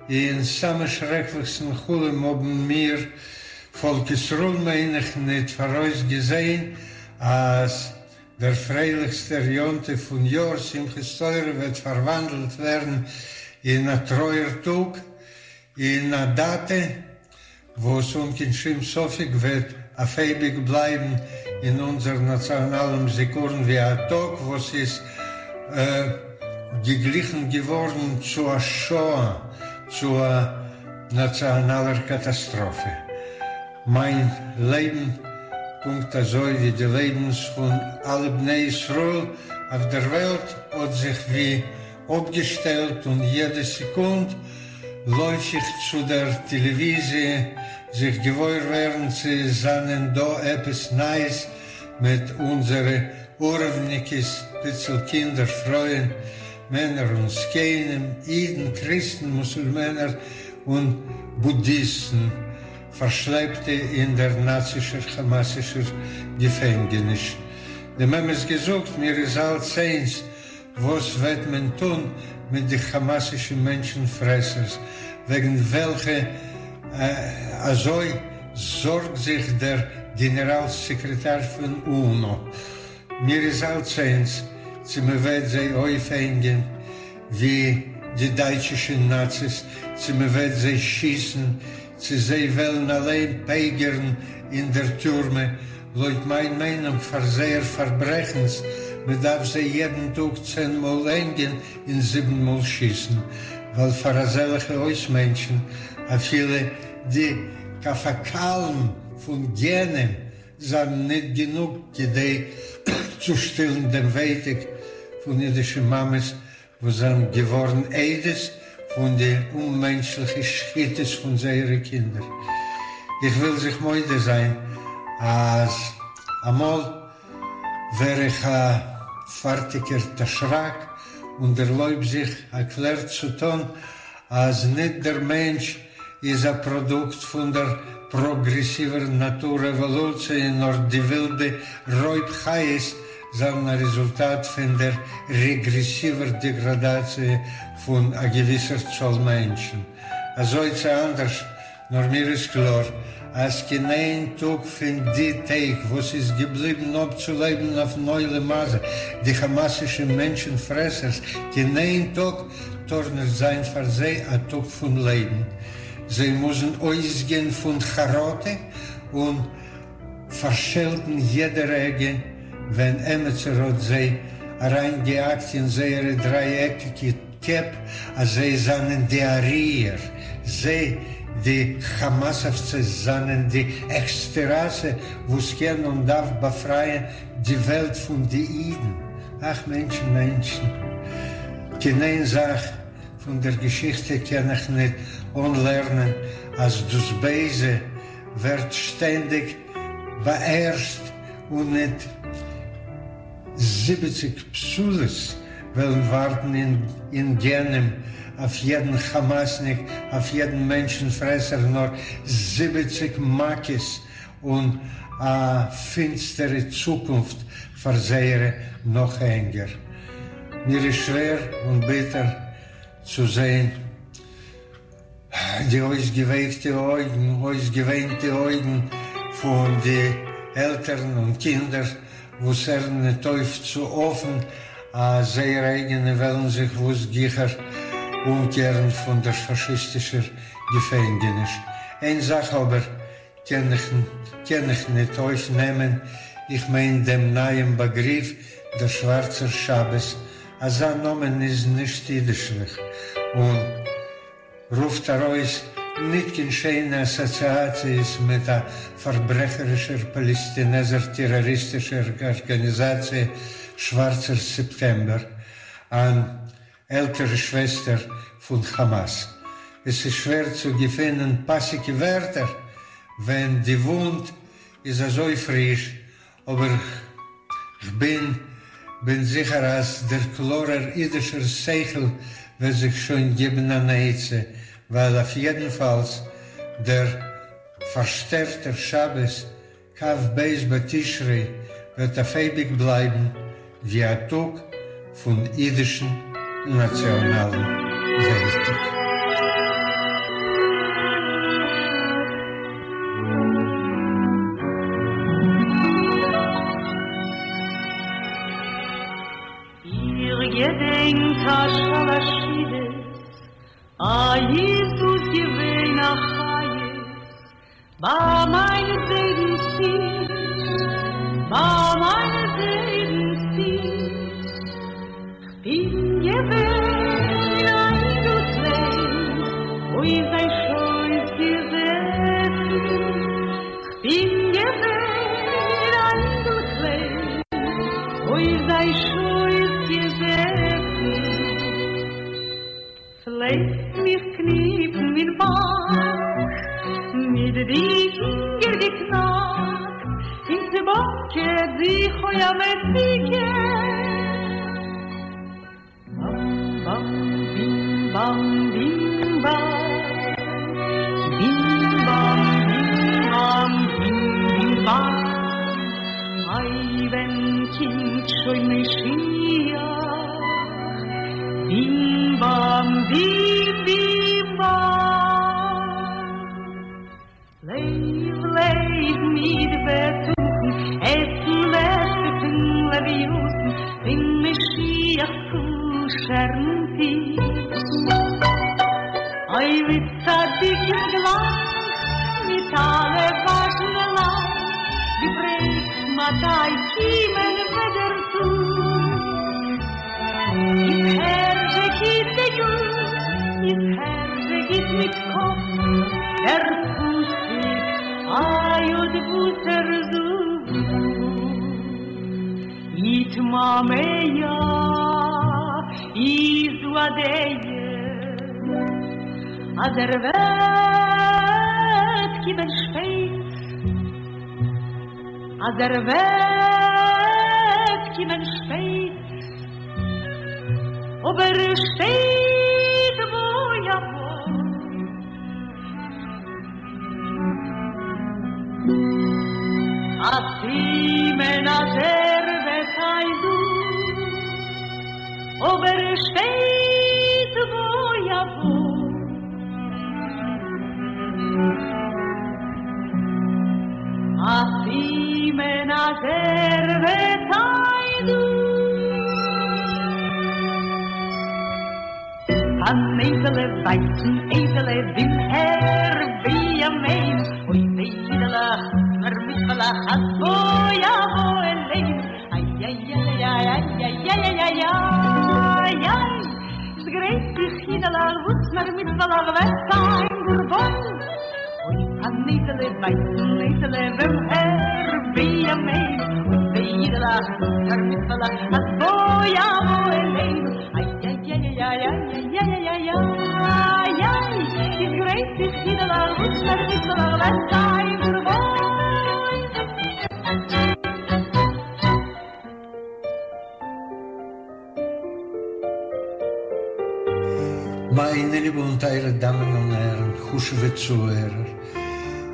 אין סאמע שרעקליכסטן חלום האבן מיר, פאלק ישראל מיין איך, ניט פאראויס געזען אז דער פרייליכסטער יום טוב פון יאר, שמחת תורה, וועט פארוואנדלט ווערן אין א טרויער טאג, אין א דאטע וואס אן קיין שום ספק וועט אויף אייביג בלייבן אין אונזער נאציאנאלן זיכרון ווי א טאג וואס איז געגליכן געווארן צו א שואה, צו א נאציאנאלער קאטאסטראפע. מיין לעבן, פונקט אזוי ווי די לעבנס פון אלע בני ישראל אויף דער וועלט, האט זיך ווי אפגעשטעלט און יעדע סעקונד לויף איך צו דער טעלעוויזיע זיך געוואויר ווערן צו עס זענען דא עפעס נייעס מיט אונזערע עורבניקעס, פיצל קינדער, פרויען, מענער און זקנים, אידן, קריסטן, מוסולמענער און בודהיסטן, פארשלעפטע אין דער נאצישער כאמאסישער געפענגעניש. דעם אמת געזאגט, מיר איז אלץ איינס וואס וועט מען טון מיט די כאמאסישע מענטשן פרעסערס וועגן וועלכע אזוי זארגט זיך דער גענעראל סעקרעטאר פון אונא. מיר איז אלץ איינס צו מען וועט זיי אויפהענגען ווי די דייטשישע נאציס, צו מען וועט זיי שיסן, צו זיי וועלן אליין פייגערן אין דער טורמע, לויט מיין מיינונג פאר זייער פארברעכנס, מען דארף זיי יעדן טאג צען מאל הענגען און זיבן מאל שיסן, ווייל פאר אזעלכע אויסמענטשן אפילו די קאפאקאלן פון גיהנום זיינען ניט גענוג כדי צו שטילן דעם ווייטיק פון אידישע מאמעס וואס זענען געווארן עדות פון די אוממענטשליכע שחיטות פון זייערע קינדער. איך וויל זיך מודה זיין אז אמאל ווער איך א פארטיגער דשראק און דערלויב זיך א קלער צו טאן אז ניט דער מענטש איז א פראדוקט פון דער פראגרעסיווער נאטור-עוואלוציע נאר די ווילדע רויב חיות זענען א רעזולטאט פון דער רעגרעסיווער דעגראדאציע פון א געוויסער צאל מענטשן. אזוי צי אנדערש, נאר מיר איז קלאר אז קיין איין טאג פון די טעג וואס איז געבליבן אפצולעבן אויפן עולם הזה די כאמאסישע מענטשן פרעסערס, קיין איין טאג טאר נישט זיין פאר זיי א טאג פון לעבן. זיי מוזן אויסגיין פון חרטה און פארשעלטן יעדע רגע ווען עמיצער האט זיי אריינגעהאקט אין זייערע דרייעקיגע קעפ אז זיי זענען די אריער, זיי די כאמאסאווצעס זענען די העכסטע ראסע וואס קען און דארף באפרייען די וועלט פון די אידן. אך מענטשן מענטשן. קיין איין זאך פון דער געשיכטע קען איך ניט אנלערנען אז דאס בייזע ווערט שטענדיג באהערשט און ניט זיבעציג בתולות וועלן ווארטן אין גיהנום אויף יעדן כאמאסניק, אויף יעדן מענטשן פרעסער, נאר זיבעציג מכות און א פינסטערע צוקונפט פאר זייערע נאכהענגער. מיר איז שווער און ביטער צו זען די אויסגעווייקטע אויגן, אויסגעוויינטע אויגן פון די עלטערן און קינדער וואס הערן ניט אויף צו האפן אז זייערע אייגענע וועלן זיך וואס גיכער אומקערן פון דער פאשיסטישער געפענגעניש. איין זאך אבער קען איך קען איך ניט אויפנעמען, איך מיין דעם נייעם באגריף דער שווארצער שבת, אזא נאמען איז נישט אידישליך און רופט ארויס ניט קיין שיינע אסאציאציעס מיט א פארברעכערישער פאלעסטינעזער טעראריסטישער ארגאניזאציע שווארצער סעפטעמבער, אן עלטערע שוועסטער פון כאמאס. עס איז שווער צו געפינען פאסיגע ווערטער ווען די וואונד איז אזוי פריש, אבער כ'בין בין זיכער אז דער קלארער אידישער שכל וועט זיך שוין געבן אן עצה, ווייל אויף יעדנפאלס דער פארשטערטער שבת כ"ב בתשרי וועט אויף אייביג בלייבן ווי א טאג פון אידישן נאציאנאלן ווייטאג. איך געדענק א שאלאשידעס, א איז דאס געווען א חיות, ביי מיין זיידנס טיש, ביי מיין זיידנס טיש, כ'בין געווען א אינגל קליין, אויף זיין שויס געזעסן, כ'בין געווען א אינגל קליין, אויף זיין שויס געזעסן. פֿלעגט מיך קניפּן אין באַק, מיט די פֿינגער געקנאַקט, און צעבאָקעט זיך אױ אַ מתיקה. באַם-באַם, בים-באַם, בים-באַם, בים-באַם, בים-באַם, בים-בים-באַם. אײ, װען. קומט שוין משיח. בים באם בים בים באם. לעב לעב מיט בטחון, עסן לעכט פון לוויתן, פון משיח'ס כשר'ן טיש. אוי ווי צדיקים גלייך, מיט אלע וואזשנע לייט, געפרעגט מתי קומען וועט דער טאג. איז הער זשע גוט די יאר, איז הער זשע גוט מיט קאפ, דער פסוק איי אט וואס ער זאגט. יתמהמה איז דא א דעה אז ער וועט קומען שפעט, אז ער וועט קומען שפעט, אבער שטייט בא יבוא. א סימן אז ער וועט זיין דא, אבער שטייט בא יבוא. א סימן אז ער וועט זיין דא. אַן אייזעלע ווייסן אייזעלע במהרה בימינו, אוי וויי אידעלעך מיר מצוה'לעך אז בוא יבוא אלינו, איי איי איי איי איי איי איי איי איי איי, איז גרייט זיך אידעלעך וואס מער מצוה'לעך וועט זיין גאר וואויל, אוי אַן אייזעלע ווייסן אייזעלע במהרה בימינו, אוי וויי אידעלעך מיר מצוה'לעך אז בוא יבוא אלינו, מיינע ליבע און טייערע דאמען און הערן, חשוב'ע צוהערער,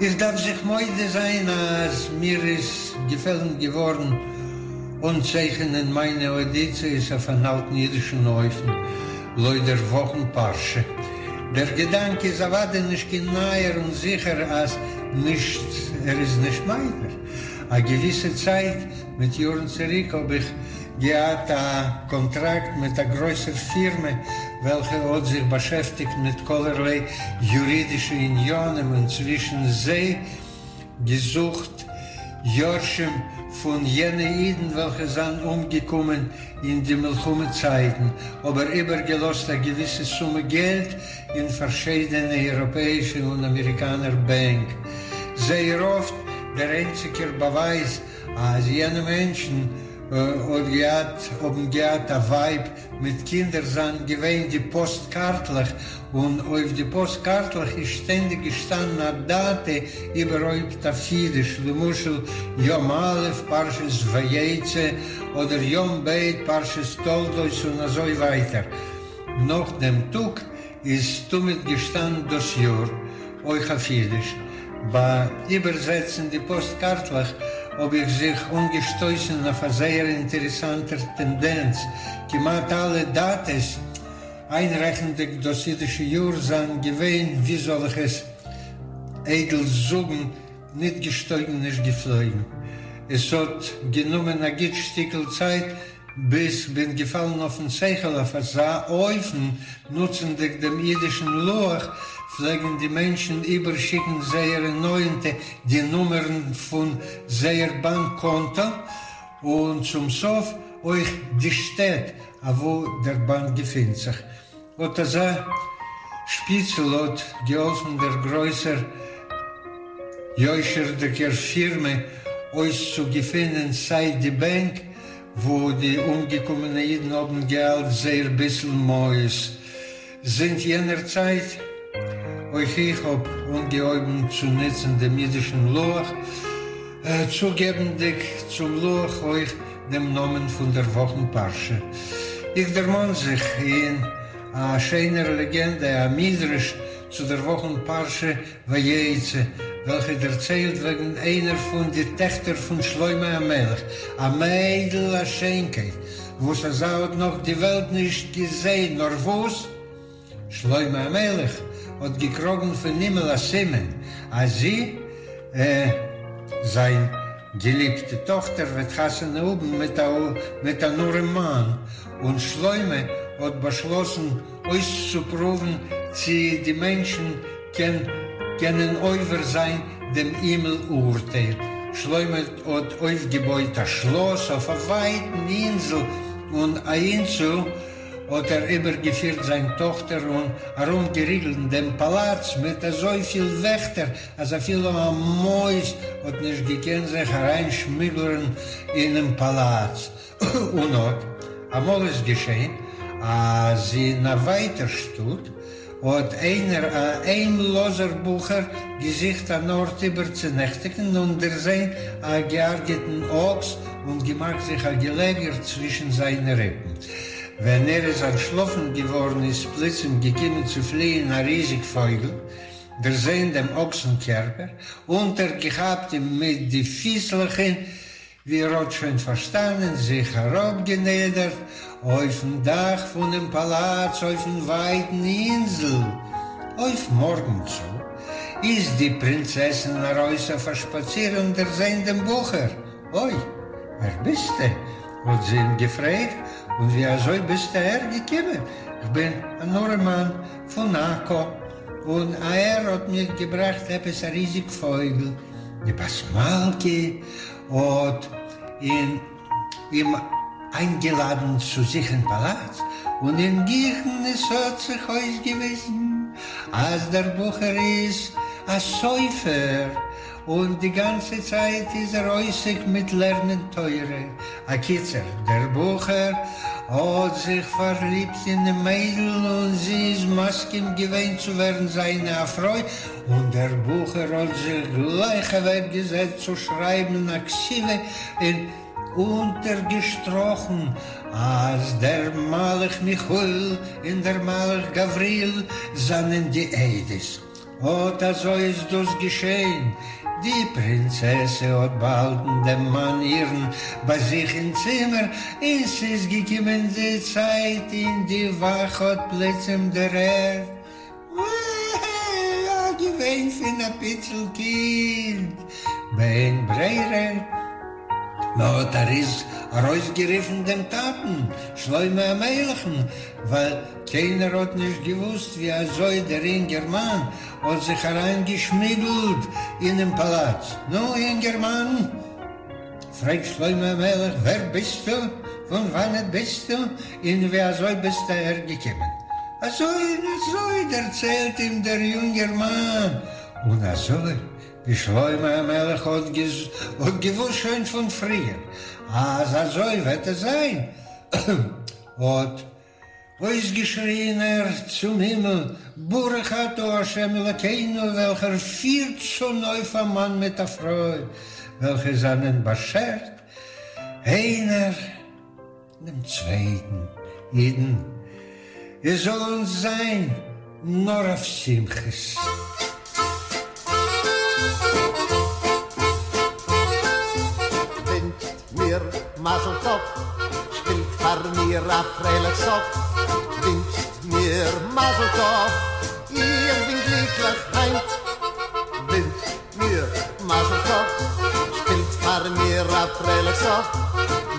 איך דארף זיך מודה זיין אז מיר איז געפעלן געווארן אנצייכענען מיינע אוידיציעס אויף אן אלטן אידישן אופן, לויט דער וואכן פרשה. דער געדאנק איז אוודאי נישט קיין נייער און זיכער אז נישט ער איז נישט מיינער. א געוויסע צייט מיט יארן צוריק האב איך געהאט א קאנטראקט מיט א גרויסער פירמע וועלכע האט זיך באשעפטיגט מיט כלערליי יורידישע עניינים און צווישן זיי געזוכט יורשים פון יענע אידן וועלכע זיינען אומגעקומען אין די מלחמה צייטן, אבער איבערגעלאזט א געוויסע סומע געלט אין פארשיידענע אייראפעאישע און אמעריקאנער בענק. זייער אפט דער איינציגער באווייז אז יענע מענטשן האט געהאט האבן געהאט א ווייב מיט קינדער זיינען געווען די פאסט קארטלעך, און אויף די פאסט קארטלעך איז שטענדיג געשטאנען א דאטע, איבערהויפט אויף אידיש, למשל יום א' פרשת ויצא, אדער יום ב' פרשת תולדות און אזוי ווייטער. נאך דעם טאג איז תמיד געשטאנען דאס יאר, אויך אויף אידיש. ביי איבערזעצן די פאסט קארטלעך האב איך זיך אנגעשטויסן אויף א זייער אינטערעסאנטער טענדענץ, כמעט אלע דאטעס, איינרעכנדיג דאס אידישע יאר, זענען געווען, ווי זאל איך עס איידל זאגן, ניט געשטויגן נישט געפלויגן. עס האט גענומען א גוט שטיקל צייט ביז כ'בין געפאלן אויפן שכל אויף אזא אופן, נוצנדיג דעם אידישן לוח, פלעגן די מענטשן איבערשיקן זייערע נאענטע די נומערן פון זייער באנק קאנטא, און צום סוף אויך די שטעט אוואו דער באנק געפינט זיך. אט אזא שפיצל האט געהאלפן דער גרויסער יושר'דיגער פירמע אויסצוגעפינען סיי די בענק וואו די אומגעקומענע אידן האבן געהאלט זייער ביסל מעות זינט יענער צייט. אויך איך האב אנגעהויבן צו נוצן דעם אידישן לוח, צוגעבנדיג צום לוח אויך דעם נאמען פון דער וואכן פרשה. איך דערמאן זיך אין א שיינער לעגענדע, א מדרש צו דער וואכן פרשה ויצא. וועלכע דערציילט וועגן איינער פון די טעכטער פון שלמה המלך, א מיידל א שיינקייט וואס אזא האט נאך די וועלט נישט געזען, נאר וואס שלמה המלך האט געקראגן פון הימל א סימן אז זי, זיין געליבטע טאכטער, וועט חתונה האבן מיט אן ארעמאן, און שלמה האט באשלאסן אויסצופרואוון צי די מענטשן קענען עובר זיין דעם הימל אורטייל. שלמה האט אויפגעבויט א שלאס אויף א ווייטן אינזל און אהינצו האט ער איבערגעפירט זיין טאכטער און ארומגעריגלט דעם פאלאץ מיט אזויפיל וועכטער אז אפילו א מויז האט נישט געקענט זיך אריינשמוגלען אינעם פאלאץ. און אט אמאל איז געשען אז אין א ווייטער שטאט האט איינער א היימלאזער בחור געזוכט אן ארט איבערצונעכטיגן און דערזען א געהרגעטן אקס און געמאכט זיך א געלעגער צווישן זיינע ריפן. ווען ער איז אנטשלאפן געווארן איז פלוצים געקומען צו פליען א ריזיג פויגל, דערזען דעם אקסן קערפער, אונטערגעכאפט אים מיט די פיסלעך און ווי ער האט שוין פארשטאנען, זיך אראפגענידערט אויפן דאך פונעם פאלאץ אויפן ווייטן אינזל. אויף מארגן צו איז די פרינצעסין ארויס אויף א שפאציר און דערזען דעם בחור. אוי, ווער ביסטע? האט זי אים געפרעגט, און ווי אזוי ביסטו אהער געקומען? כ'בין אן ארעמאן פון עכו, און אהער האט מיך געבראכט עפעס א ריזיג פויגל. די בת מלכה האט אים איינגעלאדן צו זיך אין פאלאץ, און אין גיכן עס האט זיך אויסגעוויזן אז דער בחור איז א סופר, און די גאנצע צייט איז ער עוסק מיט לערנען תורה. אקיצור, דער בחור האט זיך פארליבט אינעם מיידל און זי איז מסכים געווען צו ווערן זיינע א פרוי, און דער בחור האט זיך גלייך אוועק געזעצט צו שרייבן א כתיבה און אונטערגעשטראכן אז דער מלאך מיכאל און דער מלאך גבריאל זענען די עדות. אָט אַזױ איז דאָס געשען. די פּרינצעסע האָט באַהאַלטן דעם מאַן אירן בײַ זיך אין צימער, און ס'איז געקומען די צײַט, און די װאַך האָט פּלוצעם דערהערט אַ געװײן פֿון אַ פּיצל קינד. באין ברירה, מ'האָט אַרױסגערופֿן דעם טאַטן, שלמה המלכן, װײַל קיינער האט נישט געוואוסט ווי אזוי דער אינגערמאן האט זיך אריינגעשמוגלט אינעם פאלאץ. נו, אינגערמאן, פרעגט שלמה המלך, ווער ביסטו, פון וואנעט ביסטו, און ווי אזוי ביסטו אהער געקומען? אזוי און אזוי, דערציילט אים דער יונגערמאן, און אזוי ווי שלמה המלך האט געוואוסט שוין פון פריער אז אזוי וועט עס זיין, האט אויסגעשריען ער צום הימל, ברוך אתה ה' אלוקינו וועלכער פירט צונויף א מאן מיט א פרוי וועלכע זענען באשערט איינער דעם צווייטן, אידן, עס זאל אונז זיין נאר אויף שמחות. ווינטשט מיר מזל טוב, שפילט פאר מיר א פרייליך סוף, ווינטשט מיר מזל טוב, איך בין גליקליך היינט. ווינטשט מיר מזל טוב, שפילט פאר מיר א פרייליך סוף,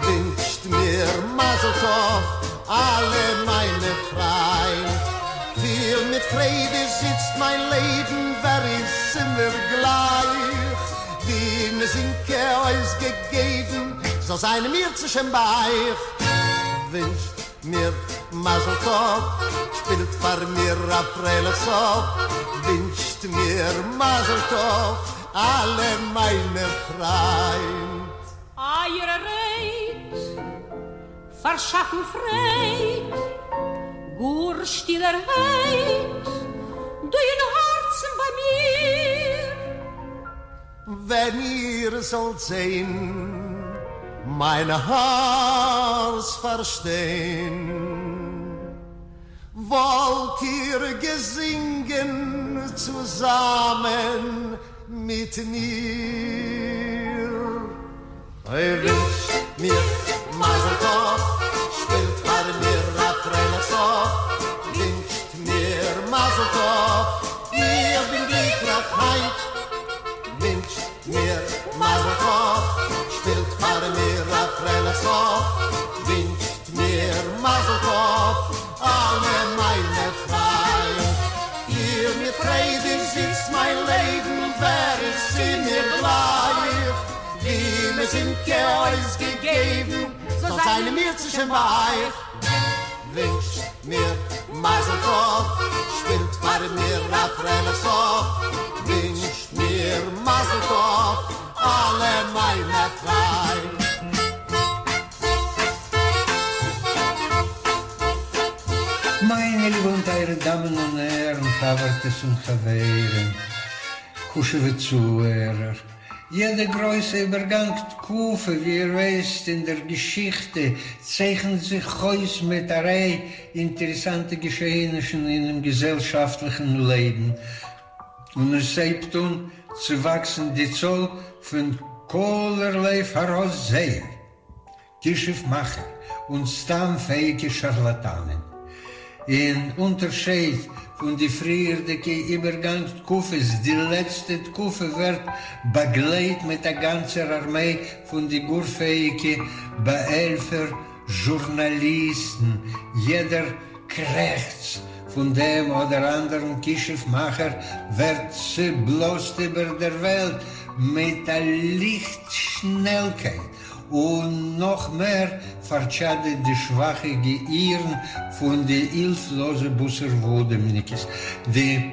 ווינטשט מיר מזל טוב, אלע מיינע פריינט. פיל מיט פרייד איז איצט מיין לעבן, ווער איז מיר גלייך? די מיזינקע אויסגעגעבן זאל זיין אם ירצה השם ביי אייך. ווינטשט מיר מזל טוב, שפילט פאר מיר א פרייליך סוף, ווינטשט מיר מזל טוב, אלע מיינע פריינט. אייערע רייד פארשאפן פרייד, גאר שטילערהייט, דא אין הארצן ביי מיר. ווען איר זאלט זען מיין הארץ פארשטיין, וואלט איר געזינגען. צוזאמען מיט מיר. אוי ווינטשט מיר מזל טוב, שפילט פאר מיר א פרייליך סוף, ווינטשט מיר מזל טוב, איך בין גליקליך היינט, ווינטשט מיר מזל טוב, שפילט פאר מיר א פרייליך סוף, ווינטשט מיר מזל טוב, אלע מיינע פריינט. פיר מיט פרייד איז איצט מיין לעבן, ווער איז צו מיר גלייך? ווי מיר זינגט אויסגעגעבן, זאל זיין אם ירצה השם ביי אייך. ווינטשט מיר מזל טוב, שפילט פאר מיר א פרייליך סוף, ווינטשט מיר מזל טוב, אלע מיינע פריינט. מיינע ליבע און טייערע דאמען און הערן, חבר'טעס און חברים, חשוב'ע צוהערער, יעדע גרויסע איבערגאנג תקופה, ווי איר ווייסט אין דער געשיכטע, צייכנט זיך אויס מיט א ריי אינטערעסאנטע געשעענישן אינעם געזעלשאפטליכן לעבן, און עס הייבט אן צו וואקסן די צאל פון כלערליי פאראויסזעער, כישוף מאכער און סתם פעאיגע שארלאטאנען. אין אונטערשייד פון די פריערדיגע איבערגאנג תקופות, די לעצטע תקופה ווערט באגלייט מיט א גאנצער ארמיי פון די גאר פעאיגע באהעלפער זשורנאליסטן, יעדער קרעכץ פון דעם אדער אנדערן כישוף מאכער ווערט צעבלאזט איבער דער וועלט מיט א ליכט שנעלקייט, און נאך מער פארטשאדעט די שוואכע געהירן פון די הילפלאזע בשר ודם'ניקעס. די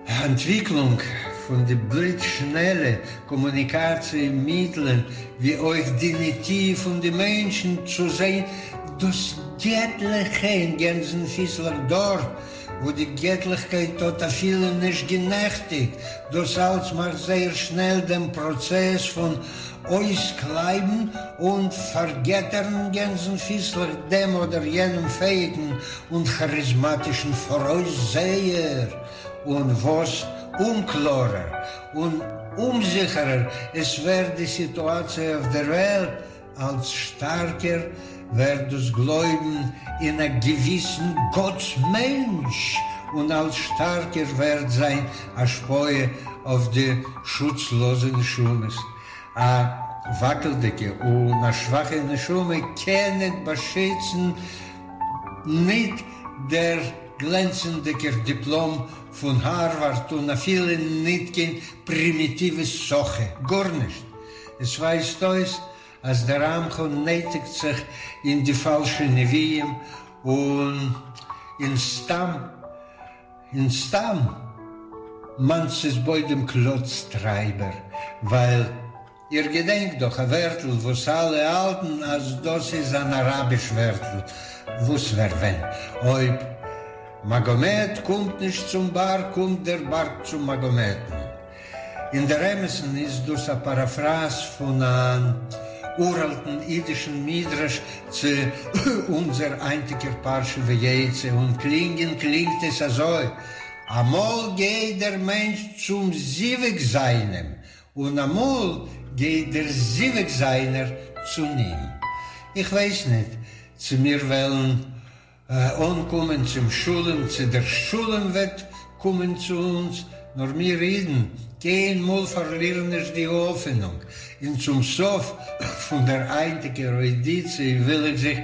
אנטוויקלונג פון די בליץ שנעלע קאמוניקאציע מיטלען, ווי אויך די נטי' פון די מענטשן צו זען דאס געטליכע אין גענזן-פיסלעך דארט וואו די געטליכקייט האט אפילו נישט גענעכטיגט, דאס אלץ מאכט זייער שנעל דעם פראצעס פון אויסקלייבן און פארגעטערן גענזן-פיסלעך דעם אדער יענעם פעאיגן און כאריזמאטישן פאראויסזעער, און וואס אומקלארער און אומזיכערער עס ווערט די סיטואציע אויף דער וועלט, אלץ שטארקער ווערט דאס גלויבן אין א געוויסן גאטס-מענטש, און אלץ שטארקער ווערט זיין השפעה אויף די שוצלאזע נשמות. א וואקלדיגע און א שוואכע נשמה קען ניט באשיצן ניט דער גלענצנדיגער דיפלאם פון הארווארד און אפילו ניט קיין פרימיטיווע סאכע, גארנישט. עס ווייזט אויס אז דער עמך נייטיגט זיך אין די פאלשע נביאים און אין סתם אין סתם מאנסיס בוידעם קלאץ טרייבער, ווייל איר געדענקט דאך א ווערטל וואס אלע האלטן אז דאס איז אן אראביש ווערטל, וואס ווער ווען אויב מאגאמעט קומט נישט צום בארג קומט דער בארג צום מאגאמעטן. אין דער אמת'ן איז דאס א פאראפראז פון אן אוראלטן אידישן מדרש צו אונזער היינטיגער פרשה ויצא, און קלינגען קלינגט עס אזוי, אמאל גייט דער מענטש צום זיווג זיינעם, און אמאל גייט דער זיווג זיינער צו אים. איך ווייס ניט צו מיר וועלן אנקומען צום שלום, צו דער שלום וועט קומען צו אונז, נאר מיר אידן קיינמאל פארלירן נישט די האפענונג, און צום סוף פון דער היינטיגער אוידיציע וויל איך זיך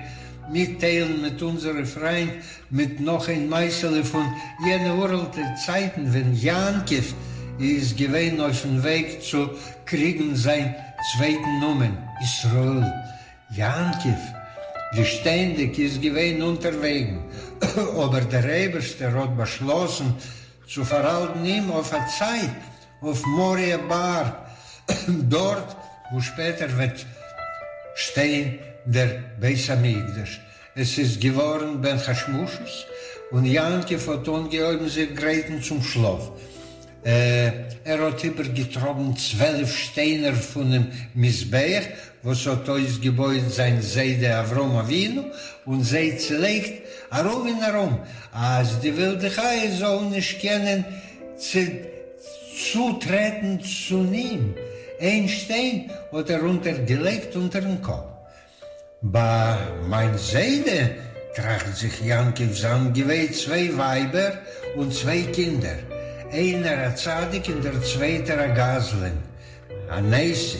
מיטטיילן מיט אונזערע פריינט מיט נאך איין מעשה'לע פון יענע אוראלטע צייטן ווען יעקב איז געווען אויפן וועג צו קריגן זיין צווייטן נאמען, ישראל. יעקב, ווי שטענדיג, איז געווען אונטערוועגן, אבער דער אייבערשטער האט באשלאסן צו פארהאלטן אים אויף א צייט אויף מוריה בארג, דארט וואו שפעטער וועט שטיין דער בית המקדש. עס איז געווארן בין השמשות, און יעקב האט אנגעהויבן זיך גרייטן צום שלאף. ער האט איבערגעטראגן 12 שטיינער פונעם מזבח וואס האט אויסגעבויט זיין זיידע אברהם אבינו, און זיי צעלייגט ארום און ארום, אז די ווילדע חיות זאלן נישט קענען. צו צוטרעטן צו אים, איין שטיין האט ער אונטערגעלייגט אונטערן קאפ. ביי מיין זיידע, טראכט זיך יעקב, זיינען געווען צוויי ווייבער און צוויי קינדער, איינער א צדיק און דער צווייטער א גזלן, אן עשו.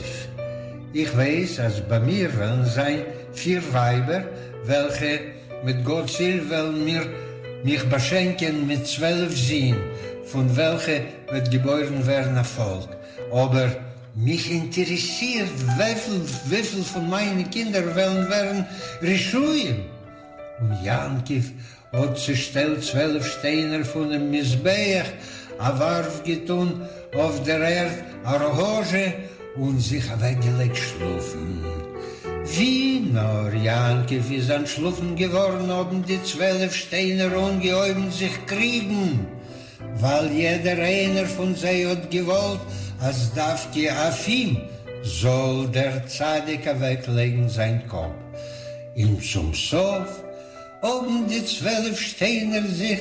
איך ווייס אז ביי מיר וועלן זיין פיר ווייבער וועלכע מיט גאט'ס הילף וועלן מיר מיך באשענקען מיט 12 זין, פון וועלכע וועט געבוירן ווערן א פאלק, אבער מיך אינטערעסירט וויפיל וויפיל פון מיינע קינדער וועלן ווערן רשעים. און יעקב האט צעשטעלט 12 שטיינער פונעם מזבח, א ווארף געטאן אויף דער ערד א ראגאזשע און זיך אוועקגעלייגט שלאפן. ווי נאר יעקב איז אנטשלאפן געווארן האבן די 12 שטיינער אנגעהויבן זיך קריגן, ווייל יעדער איינער פון זיי האט געוואלט אז דווקא אויף אים זאל דער צדיק אוועקלייגן זיין קאפ. און צום סוף האבן די 12 שטיינער זיך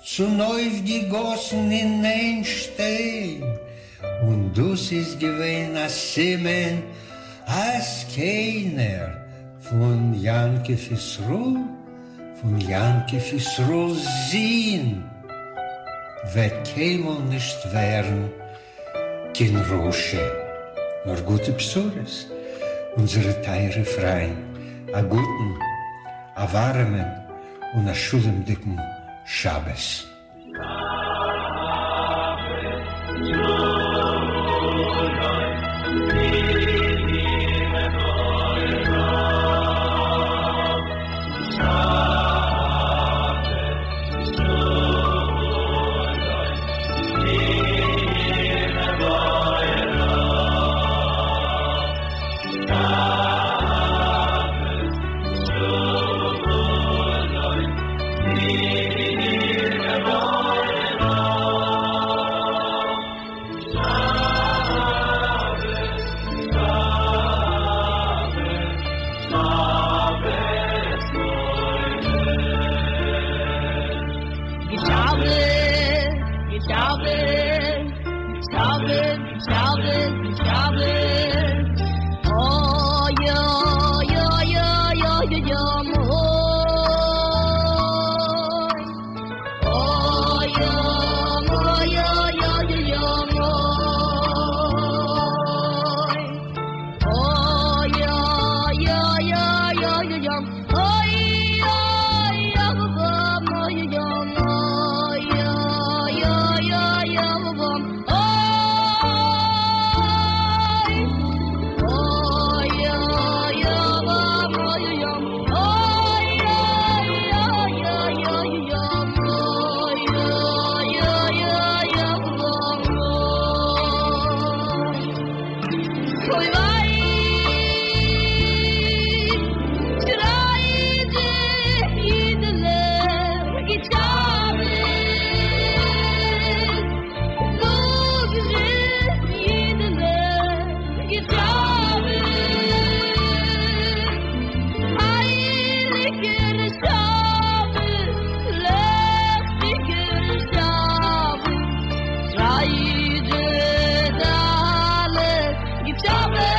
צונויפגעגאסן אין איין שטיין, און דאס איז געווען א סימן אז קיינער פון יעקב ישראל, פון יעקב ישראל'ס זין, וועט קיינמאל נישט ווערן קיין רשע. נאר גוטע בשורות, אונזערע טייערע פריינט, א גוטן, א ווארעמען און א שלומ'דיגן שבת. Shabbos.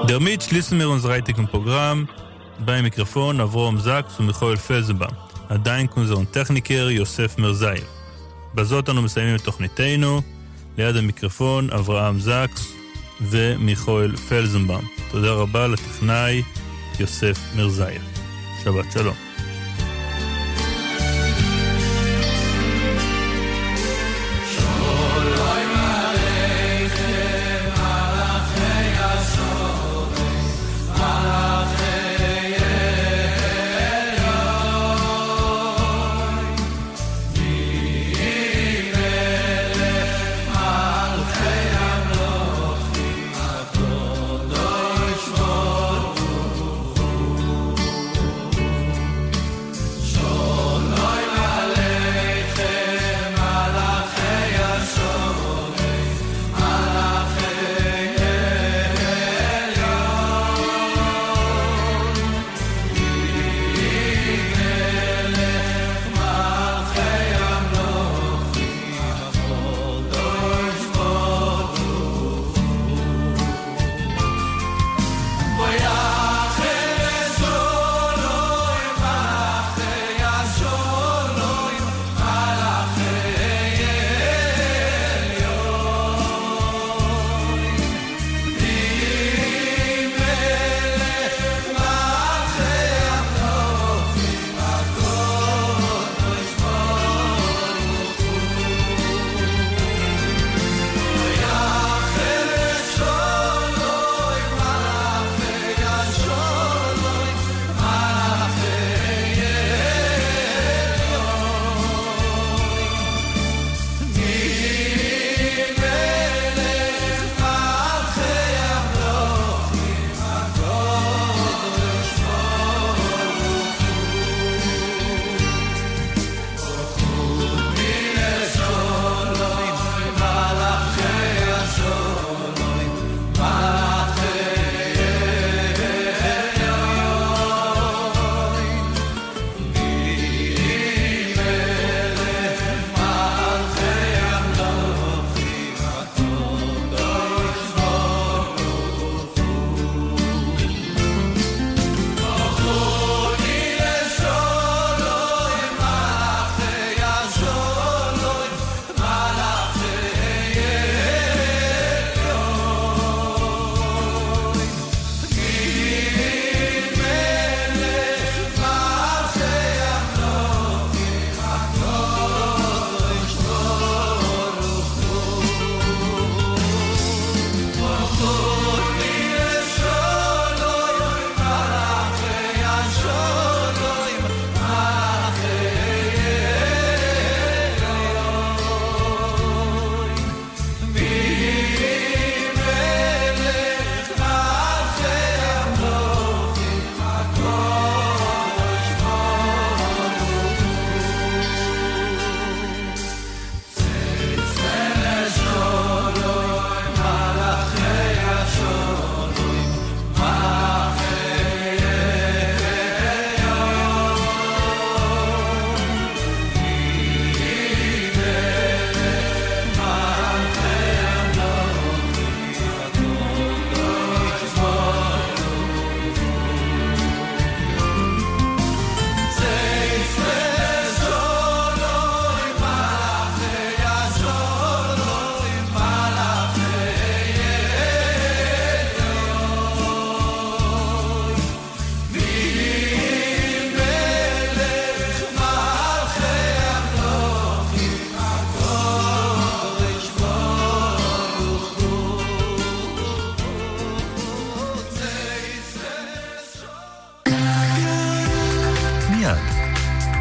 דערמיט שליסן מיר אונדזער הײַנטיקן פּראָגראַם. בײַם מיקראָפֿאָן, אַבֿרהם זאַקס און מיכאל פֿעלזנבאַום. אַ דאַנק אונדזערן טעכניקער יוסף מירזאַיעוו. בזאת אנו מסיימים את תוכניתנו. ליד המיקרופון אברהם זקס ומיכאל פלזנבאום. תודה רבה לטכנאי יוסף מירזאייב. שבת שלום.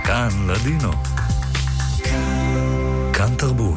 כאן לדינו. כאן תרבות.